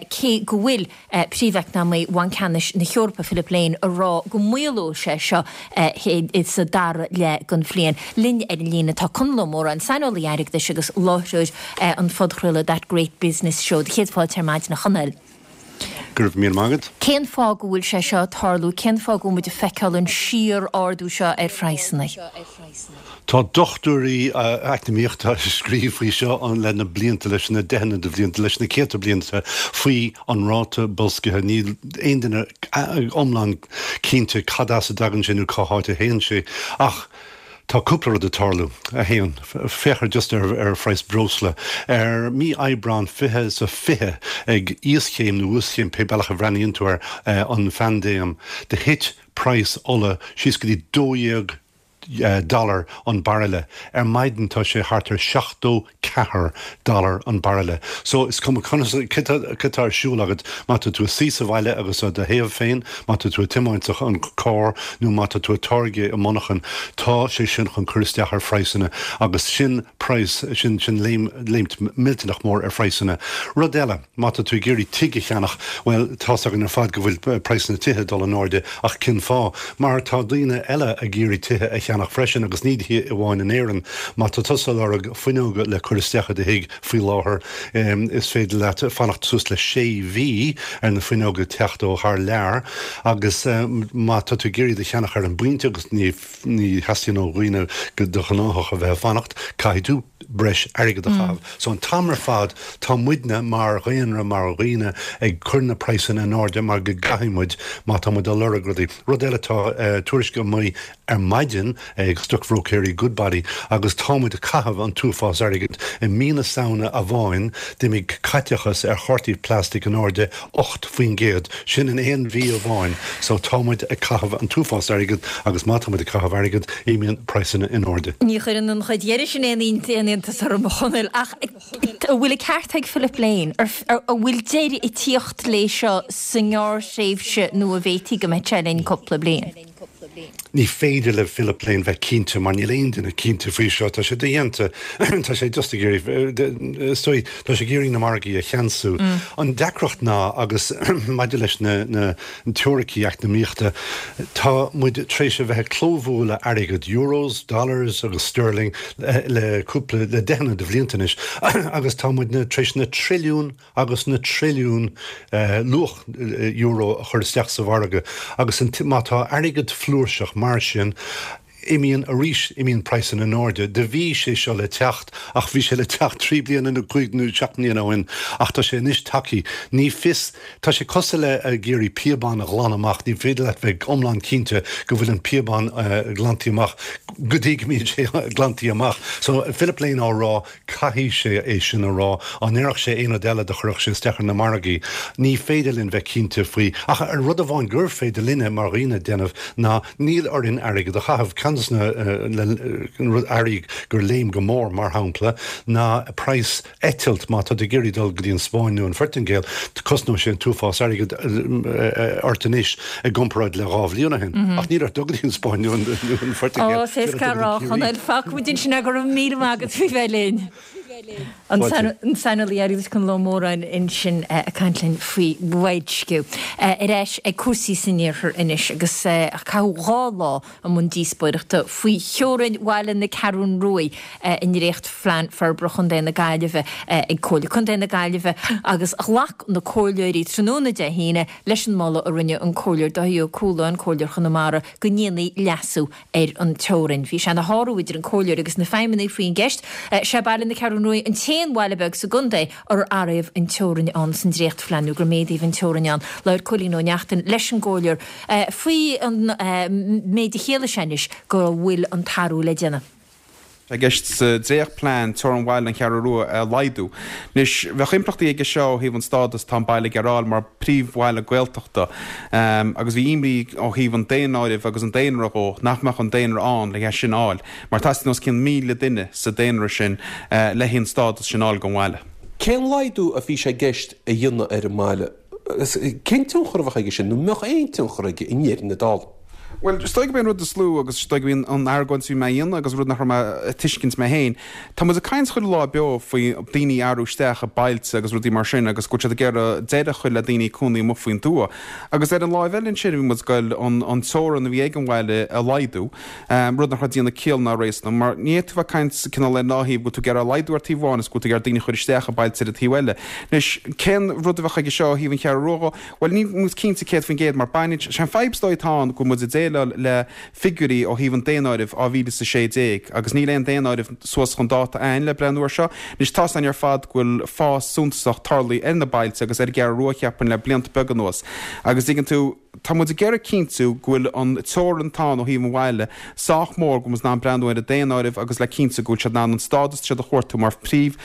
cé go bhfuil. Príomheacnamaí Bhanc Ceannais na hEorpa, Philip Lane, ag rá go maolóidh sé seo sa dara leath den bhliain. Linn ar an líne tá Conall Ó Móráin, saineolaí airgeadais agus láithreoir an phodchraoladh That Great Business Show. Do chéad fáilte ar maidin, a Chonaill. Go raibh míle maith agat. Cén fáth go bhfuil sé seo ag tarlú? Cén fáth go bhfuil muid ag feiceáil an síor-ardú seo ar phraghsanna? Tá dochtúirí eacnamaíochta ag scríobh faoi seo le na blianta, leis na deicheanna de bhlianta, leis na céadta blianta, faoi an ráta boilscithe. Níl aon duine iomlán cinnte cad as a dtagann sé nó cá háit a théann sé. Ach tá cúpla rud ag tarlú. 1, Féach ar just ar ar phraghas breosla. Ar mí Aibreán 20 is a 20, ag íoschéim nó uaschéim, pé bealach a bhreathnaíonn tú air, an phaindéim, do thit praghas ola síos go dtí 12 dollar an bairille. Ar maidin tá sé thart ar 74 dollar an bairille. So is cuma conas, cad tá ar siúl agat, má tá tú ag suí sa bhaile agus do théamh féin, má tá tú ag tiomáint an carr nó má tá tú ag táirgeadh i monarchan, tá sé sin chun cur isteach ar phraghsanna agus sin praghas, sin, sin léim, léimt millteanach mór ar phraghsanna. Rud eile, má tá tú ag iarraidh tigh a cheannach, bhuel, tá's againn ar fad go bhfuil praghsanna tithe ag dul in airde ach cén fáth? Mar tá daoine eile ag iarraidh tithe a cheannach freisin agus ní hé amháin in Éirinn. Má tá tusa ag lorg fuinneoga le cur isteach i do thigh faoi láthair, is féidir leat fanacht suas le sé mhí ar na fuinneoga teacht ó thar lear agus má tá tú ag iarraidh iad a cheannach ar an bpointe agus ní theastaíonn ó dhaoine de ghnáthach a bheith ag fanacht, caithfidh tú. tú breis airgead a chaitheamh. So an t-am ar fad tá muidne mar dhaonra, mar dhaoine ag cur na praghsanna in airde mar go gcaithfidh muid má tá muid ag lorg rudaí. Rud eile tá tuairisc amuigh ar maidin ag stocbhróicéirí Goodbody agus tá muid ag caitheamh an t-uafás airgid. I mí na Samhna amháin d'imigh caiteachas ar chártaí plastic in airde 8%, sin in aon mhí amháin. So tá muid ag caitheamh an t-uafás airgid agus má tá muid ag caitheamh airgid imíonn praghsanna in airde. Ní chuireann an chuid dheiridh sin aon iontas orm, a Chonaill, ach an bhfuil an ceart ag Philip Lane? An bhfuil deireadh ag tíocht léi seo sa ngearrthréimhse nó an bhféadfaí go mbeidh sé linn cúpla bliain? Ní féidir le Philip Lane bheith cinnte mar níl aon duine cinnte faoi seo. Tá sé dodhéanta. Tá sé just ag iarraidh, is dóigh, tá sé ag iarraidh na margaí a cheansú. An deacracht ná, agus maidir leis na na teoiricí eacnamaíochta, tá muid tar éis a bheith ag clóbhualadh airgead, euros, dollars agus sterling, le cúpla, le deicheanna de bhlianta anois agus tá muidne tar éis na trilliúin agus na trilliúin luach euro a chur isteach sa mhargadh agus má tá airgead flúirseach mar sin, imíonn arís, imíonn praghsanna in airde. Do bhí sé seo le teacht ach bhí sé le teacht trí bliana nó cúig nó seacht mbliana ó shin ach tá sé anois tagtha. Ní fios, tá sé cosúil le ag iarraidh píobán a ghlanadh amach, ní féidir leat bheith iomlán cinnte go bhfuil an píobán glantaí amach go dtí go mbíonn sé glantaí amach. So Philip Lane á rá Caithfidh sé é sin a rá. Dá ndéarfadh sé aon rud eile do chuirfeadh sé isteach ar na margaí. Ní féidir linn bheith cinnte faoi. Ach an rud amháin gur féidir linne mar dhaoine déanamh ná níl orainn airgead a chaitheamh. Ceann des na earraí gur léim go mór, mar shampla, ná praghas eitilt. Má tá tú ag iarraidh dul go dtí an Spáinn nó an Phortaingéil, cosnóidh sé an t-uafás airgid ort anois i gcomparáid le 2 bhliain ó shin. Ach níl ort dul go dtí an Spáinn nó an Phortaingéil. Ó, is éasca a rá, a Chonaill. Fágfaidh muid ansin é, go raibh míle maith agat faoi bheith linn. An saineolaí airgeadais Conall Ó Móráin ansin ag caint linn faoi bhoilsciú. Ar ais ag cúrsaí san iarthar anois agus caitheadh 2 lá i mbun díospóireachta faoi theorainn bhaile na Ceathrún Ruaidh i ndréachtphlean forbartha Chontae na Gaillimhe ag Comhairle Contae na Gaillimhe agus ghlac na comhairleoirí tráthnóna Dé hAoine leis an moladh a rinne an Comhairleoir Dáithí Ó Cualáin, Comhairleoir Chonamara, go ndéanfaí leasú ar an teorainn. Bhí sé ina shárú idir an Comhairleoir agus na feidhmeannaigh faoin gceist. Sé Baile na Ceathrún Ruaidh an t-aon bhaile beag sa gcontae ar áiríodh an teorainn ann san dréachtphlean nó gur méadaíodh an teorainn ann. Labhair Cóilín Ó Neachtain leis an gComhairleoir faoi an méid a chiallaigh sé anois go bhfuil an t-athrú le déanamh. Tá i gceist sa dréachtphlean teorainn bhaile an Cheathrú Rua a laghdú. Anois, bheadh impleachtaí aige seo ó thaobh an stádas atá an baile ag iarraidh a fháil mar phríomhbhaile Gaeltachta agus bhí imní ó thaobh an daonáirimh agus an daonra dhó nach mbeadh an daonra ann le é sin a fháil mar teastaíonn os cionn 1,000 duine sa daonra sin le an stádas sin a fháil don bhaile. Cén laghdú a bhí sé i gceist a dhéanamh ar an mbaile? Cén tionchar a bheadh aige sin, nó an mbeadh aon tionchar aige i ndeireadh na dála? Bhuel, is dóigh gurb é an rud is lú, agus is dóigh gurb í an argóint a bhí mé a dhéanamh agus rud nach raibh mé ag tuiscint mé féin, tá muid ag caint chuile lá beo faoi daoine a athrú isteach i bailte agus rudaí mar sin agus go bhfuil siad ag iarraidh deireadh a chur le daoine ag cónaí amuigh faoin tuath. Agus ar an láimh eile ansin bhí muid ag goil an teorainn a bhí ag an bhaile a laghdú, rud nach raibh ag déanamh ciall ná réasún mar ní fhéadfá bheith ag caint cineál ar an dá thaobh, go bhfuil tú ag iarraidh laghdú ar taobh amháin is go bhfuil tú ag iarraidh daoine a chur isteach i bailte ar an taobh eile. Anois, cén rud a bheadh aige seo ó thaobh an Cheathrú Rua dhó? Bhuel, níl muid cinnte 100% mar baineann sé an fadhb is dóigh atá ann go bhfuil muid ag déileáil le figiúirí ó thaobh an daonáirimh 2016 agus níl aon daonáireamh suas chun dáta a'ainn le breathnú ar seo. Anois tá's a'inn ar fad go bhfuil fás suntasach tarlaithe ar na bailte agus ar an gCeathrú Rua cheapfainn le blianta beaga anuas agus dtuigeann tú, tá muid ag iarraidh cinntiú go bhfuil an teorainn atá ann ó thaobh an bhaile sách mór go bhfuil muid in ann breathnú ar an daonáireamh agus le cinntiú go bhfuil siad in ann an stádas atá siad a chuartú mar phríomh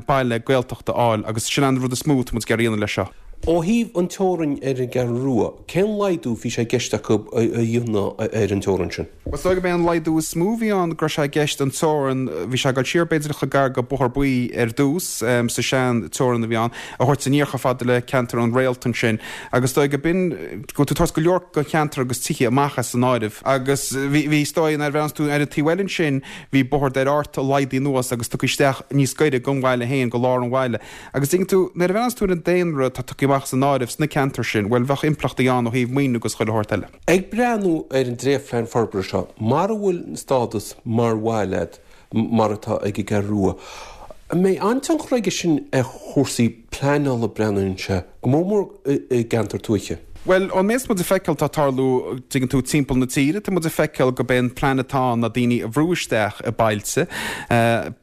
baile Gaeltachta a fháil agus sin an rud is mó atá muid ag iarraidh a dhéanamh leis seo. Ó thaobh an teorainn ar an gCeathrú Rua, cén laghdú bhí sé i gceist acu a dhéanamh ar an teorainn sin? Is dóigh gurb é an laghdú is mó a bhí ann go raibh sé i gceist an teorainn, bhí sé ag dul siar b'fhéidir chomh gar go Bóthar Buí ar dtús, sa sean teorainn a bhí ann, a thabhairt aniar chomh fada le ceantar an Réalt ansin agus is dóigh go b'in, go bhfuil tú ag tabhairt go leor den cheantar agus tithe amach as an áireamh. Agus bhí, bhí, is dóigh, nuair a bhreathnaíonn tú ar an taobh eile ansin, bhí Bóthar Doire Ard laghdaithe anuas agus tugtha isteach níos gaire don bhaile féin, go lár an bhaile. Agus tuigeann tú, nuair a bhreathnaíonn tú ar an daonra atá tugtha amach as an áireamh sna ceantair sin, bhuel, bheadh impleachtaí ann ó thaobh maoiniú agus chuile shórt eile. Ag breathnú ar an dréachtphlean forbartha seo, mara bhfuil an stádas mar bhaile agat mar atá ag an gCeathrú Rua, an mbeidh an-tionchar aige sin ar chúrsaí pleanála, breathnaíonn sé, go mór mór i gceantar tuaithe? Bhuel, ón méid atá muid ag feiceáil atá ag tarlú, tuigeann tú, timpeall na tíre, tá muid ag feiceáil gurb é an plean atá ann ná daoine a bhrú isteach i bailte,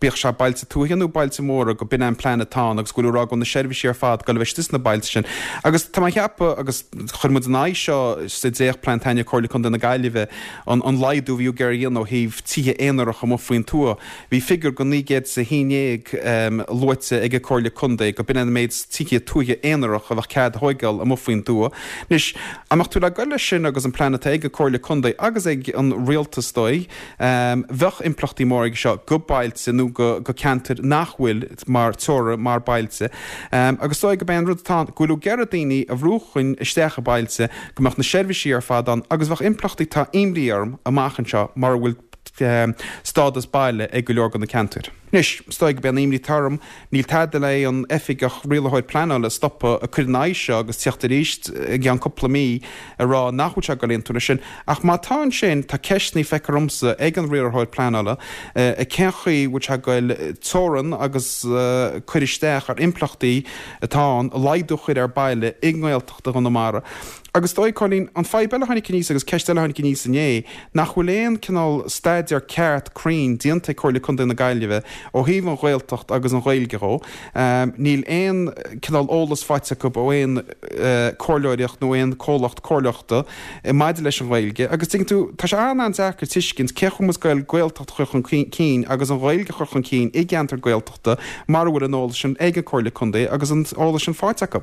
bíodh sé bailte tuaithe nó bailte móra, go b'in é an plean atá ann agus go bhfuil ag rá go bhfuil na seirbhísí ar fad ag dul a bheith istigh sna bailte sin. Agus tá mé ag ceapadh, agus chuir muid in aghaidh seo sa dréachtphlean taitneamh Comhairle Contae na Gaillimhe, an an laghdú a bhí ag iarraidh a dhéanamh ó thaobh tithe aonarach amuigh faoin tuath, Bhí figiúr de 911 luaite ag an Comhairle Contae go b'in an méid tithe tuaithe aonarach a bheadh cead a thóigeáil amuigh faoin dtuath. Anois, dá mbeadh tú le goil leis sin agus an plean atá ag an Comhairle Contae agus ag an Rialtas is dóigh, bheadh impleachtaí móra aige seo go bailte nó go ceantair nach bhfuil mar teora mar bailte. Agus is dóigh go b'é an rud atá ann, go bhfuil ag iarraidh daoine a bhrú chun isteach i bailte, go mbeadh na seirbhísí ar fad ann agus bheadh impleachtaí, tá imní orm, amach anseo mura bhfuil stádas baile ag go leor de na ceantair. Anois, is dóigh gurb é an imní atá orm, níl tada le aon oifigeach rialaitheoir pleanála a stopadh ag cur in aghaidh seo agus tíocht arís i gceann cúpla mí ag rá nach bhfuil sé ag dul aontú leis sin. Ach má tá ansin, tá ceisteanna feictear domsa ag an riarthóir pleanála cén chaoi bhfuil sé ag dul teorann agus cur isteach ar impleachtaí atá ann, laghdú a chur ar baile i nGaeltacht Chonamara. Agus is dóigh, Cóilín, an fadhb eile a tháinig aníos agus ceist eile a tháinig aníos inné, nach bhfuil aon cineál staidéar ceart cruinn déanta ag Comhairle Contae na Gaillimhe ó thaobh an Ghaeltacht agus an Ghaeilge dhó. Níl aon cineál eolas faighte acu ó aon comhairleoireacht nó aon comhlacht comhairleachta maidir leis an Ghaeilge. Agus tuigeann tú, tá sé an-an-deacair tuiscint cén chaoi a bhfuil muid ag goil Gaeltacht a chur chun cinn agus an Ghaeilge a chur chun cinn i gceantar Gaeltachta. mara bhfuil an eolas sin ag an Comhairle Contae agus an eolas sin faighte acu.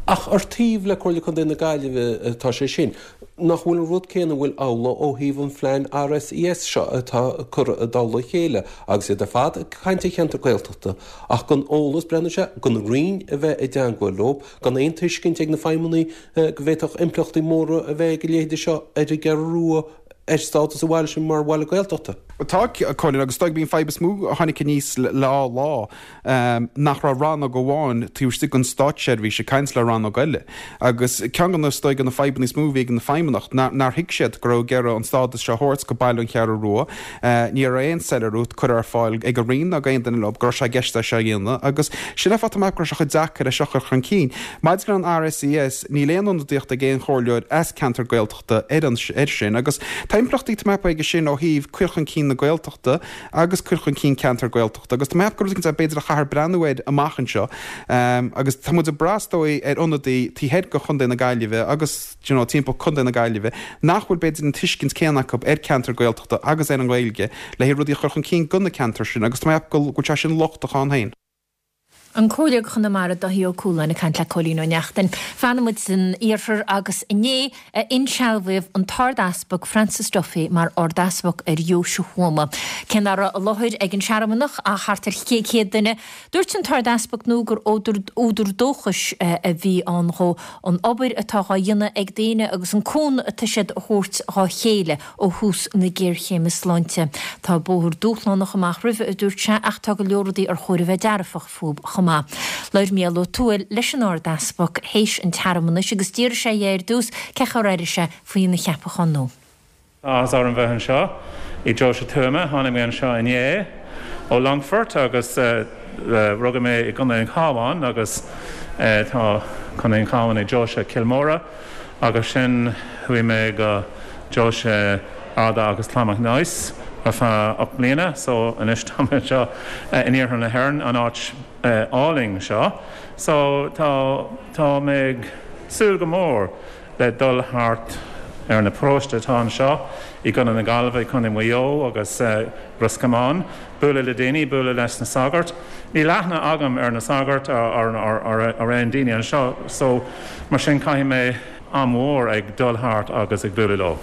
Ach ar taobh le Comhairle Contae na Gaillimhe atá sé sin, nach bhfuil an rud céanna an bhfuil amhlaidh ó thaobh an phlean RSES seo atá curtha i dtoll a chéile agus iad ar fad ag caint ar cheantar Gaeltachta ach gan eolas, breathnaíonn sé, gan Roinn a bheith i dteangmháil leo, gan aon tuiscint ag na feidhmeannaigh go bhféadfadh impleachtaí móra a bheith ag a leithéide seo ar an gCeathrú Rua. ar stádas an bhaile sin mar bhaile Gaeltachta. Tá, a Chóilín, agus is dóigh gurb í an fadhb is mó a tháinig aníos le dhá lá, nach raibh rannóg amháin taobh istigh den státseirbhís ag caint le rannóg eile. Agus ceann de na, is dóigh, de na fadhbanna is mó a bhí ag an Feidhmeannacht, nár thuig siad go raibh ag iarraidh an stádas seo a thabhairt go baile an Cheathrú Rua. Ní raibh aon soiléiriú curtha ar fáil ag an Roinn ná ag aon duine leo go raibh sé i gceist é seo a dhéanamh agus sin an fáth tá mé ag ceapadh go raibh sé chomh deacair é seo a chur chun cinn. Maidir le an RSES, níl aon ionadaíocht ag aon chomhairleoir as ceantar Gaeltachta, ar an air sin agus tá impleachtaí tá mé ag ceapadh aige sin ó thaobh cur chun cinn na Gaeltachta agus cur chun cinn ceantar Gaeltachta agus tá mé ag ceapadh gur rud éicint é b'fhéidir a chaithfear breathnú air amach anseo agus tá muid ag brath is dóigh ar ionadaí taobh thoir de Chontae na Gaillimhe agus you know timpeall Contae na Gaillimhe nach bhfuil b'fhéidir an tuiscint céanna acu ar ceantar Gaeltachta agus ar an Ghaeilge le haghaidh rudaí a chur chun cinn do na ceantair sin agus tá mé ag ceapadh go bhfuil sé sin lochtach ann féin. An Comhairleoir Chonamara Dáithí Ó Cualáin ag caint le Cóilín Ó Neachtain. Fanann muid san iarthar agus inné a insealbhaíodh an tArd-Easpag Francis Duffy mar Ard-Easpag ar Dheoise Thuama. Cé nach raibh i láthair ag an searmanach ach thart ar 100 duine, dúirt an tArd-Easpag nua gur údar dóchais a bhí ann dhó an obair atá dhá dhéanamh ag daoine agus an cúnamh atá siad a thabhairt dhá chéile. ó thús na géarchéime sláinte. Tá bóthar dúshlánach amach roimhe, a dúirt sé, ach tá go leor rudaí ar chóir a bheith dearfach fúb chomh maith. Labhair Mícheál Ó Tuathail leis an Ard-Easpag théis an tsearmanais agus d'fhiafraigh sé dhe ar dtús cén chaoi ar airigh sé faoina cheapachán nua. Tá áthas orm bheith anseo i Deoise Tuama. Tháinig mé anseo inné ó Longfort agus rugadh mé i gContae an Chabháin agus tá Contae an Chabháin i Deoise Cill Móra. Agus sin chuaigh mé go Deoise Ardagh agus Clonmacnoise ar feadh 8 mbliana so anois tá mé anseo in iarthar na hÉireann, an áit álainn seo. So tá tá mé ag súil go mór le dul thart ar na paróiste atá anseo i gContae na Gaillimhe, i Contae Mhaigh Eo agus Ros Comáin, bualadh le daoine, bualadh leis na sagairt. Níl aithne agam ar na sagairt ar aon daoine anseo so mar sin caithfidh mé am mhór ag dul thart agus ag bualadh leo.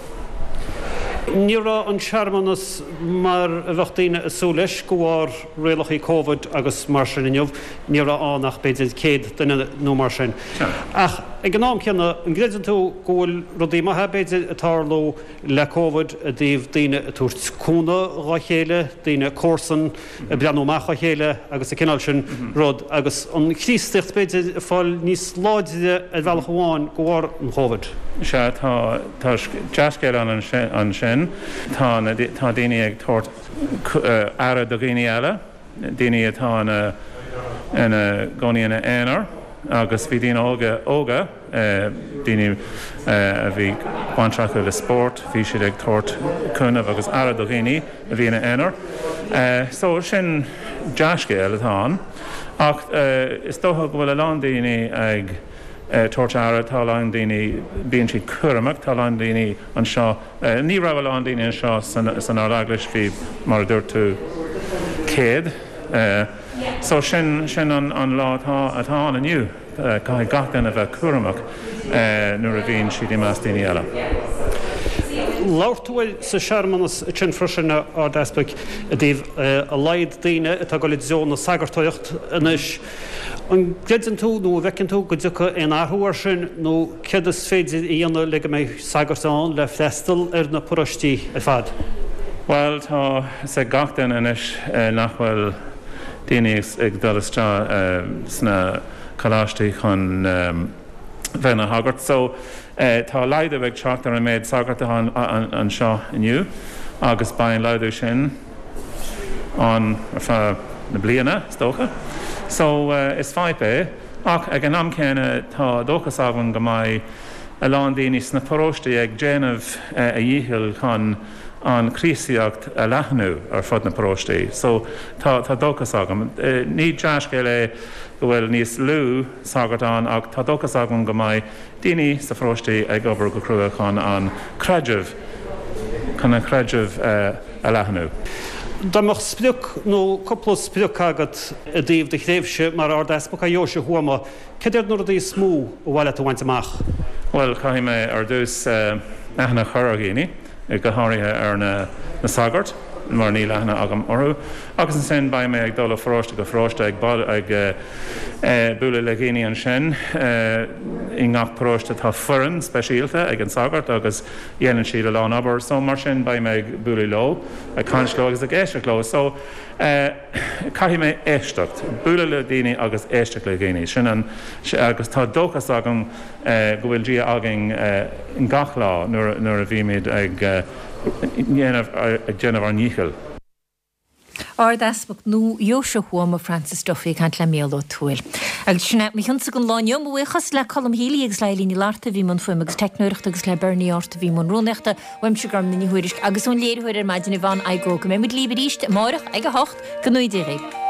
Ní raibh an searmanas mar a bheadh daoine ag súil leis de bharr rialacha Covid agus mar sin inniu. Ní raibh ann ach b'fhéidir 100 duine nó mar sin. Ach ag an am céanna, an gcreideann tú go bhfuil rudaí maithe b'fhéidir ag tarlú le Covid i dtaobh daoine ag tabhairt cúnamh dhá chéile, daoine comharsan ag breathnú amach dhá chéile agus an cineál sin rud agus an Chríostaíocht b'fhéidir ag fáil níos láidre ar bhealach amháin de bharr an Chóivid. Sea, tá, tá dea-scéal ann ansin. Tá na, tá daoine ag tabhairt aire do dhaoine eile, daoine atá ina, ina gcónaí ina aonar. agus bhí daoine óga, óga, daoine a bhí baint acu le spórt, bhí siad ag tabhairt cúnamh agus aire do dhaoine a bhí ina aonar. So sin dea-scéal atá ann. Ach is dócha go bhfuil a lán daoine ag tabhairt aire, tá a lán daoine, bíonn siad cúramach, tá a lán daoine anseo, ní raibh a lán daoine anseo san Ard-Eaglais, bhí, mar a dúirt tú, 100. So sin, sin an lá atá, atá ann inniu. Caithfidh gach duine bheith cúramach nuair a bhíonn siad i measc daoine eile. Labhair tú sa searmanas sin freisin, a Ard-Easpaig, i dtaobh a laghad daoine atá ag dul i dtreo na sagartóireacht anois. An gcreideann tú nó an bhfeiceann tú go dtiocfaidh aon athrú air sin nó céard is féidir a dhéanamh le go mbeidh sagairt ann le freastal ar na paróistí ar fad? Bhuel, tá a fhios ag gach duine anois nach bhfuil daoine ag dul isteach sna coláistí chun bheith ina shagart. So, tá laghdú ag teacht ar an méid sagart atá anseo inniu agus beidh an laghdú sin ann ar feadh na bliana, is dócha. So, is fadhb é. Ach ag an am céanna, tá dóchas agam go mbeidh a lán daoine sna paróistí ag déanamh a dhícheall chun an Chríostaíocht a leathnú ar fud na paróistí. So, tá, tá dóchas agam. Ní dea-scéal é go bhfuil níos lú sagart ann ach tá dóchas agam go mbeidh daoine sa pharóistí ag obair go crua chun an creideamh, chun an creideamh a leathnú. Dá mbeadh sprioc nó cúpla sprioc agat i dtaobh do thréimhse mar Ard-Easpag ar Dheoise Thuama, Cad iad na rudaí is mó a ba mhaith leat a bhaint amach? Bhuel, caithfidh mé ar dtús aithne a chur ar dhaoine, go háirithe ar na sagairt, mar níl aithne agam orthu. Agus ansin beidh mé ag dul ó pharóiste go paróiste ag bualadh le dhaoine ansin. I ngach paróiste tá foireann speisialta ag an sagart agus dhéanann siad a lán obair. So mar sin beidh mé ag bualadh leo, ag caint leo agus ag éisteacht leo. So. Caithfidh mé éisteacht, bualadh le daoine agus éisteacht le daoine. Sin an, agus tá dóchas agam go bhfuil Dia againn gach lá nuair a bhímid ag déanamh, ag déanamh ár ndíchill. Ard-Easpag nua Dheoise Thuama, Francis Duffy ag caint le Mícheál Ó Tuathail. Agus sin é mo chionsa don lá inniu. Mo bhuíochas le Colm Healy agus le Eileen Ní Fhlatharta a bhí i mbun fuaime agus teicneoireachta agus le Bernie Art a bhí i mbun rúnaíochta. Uaimse Gormfhlaith Ní Thuairisg agus ón léiritheoir ar maidin Yvonne Igoe go mbeidh muid libh arís amárach ag 8 go ngnóthaí Dia dhaoibh.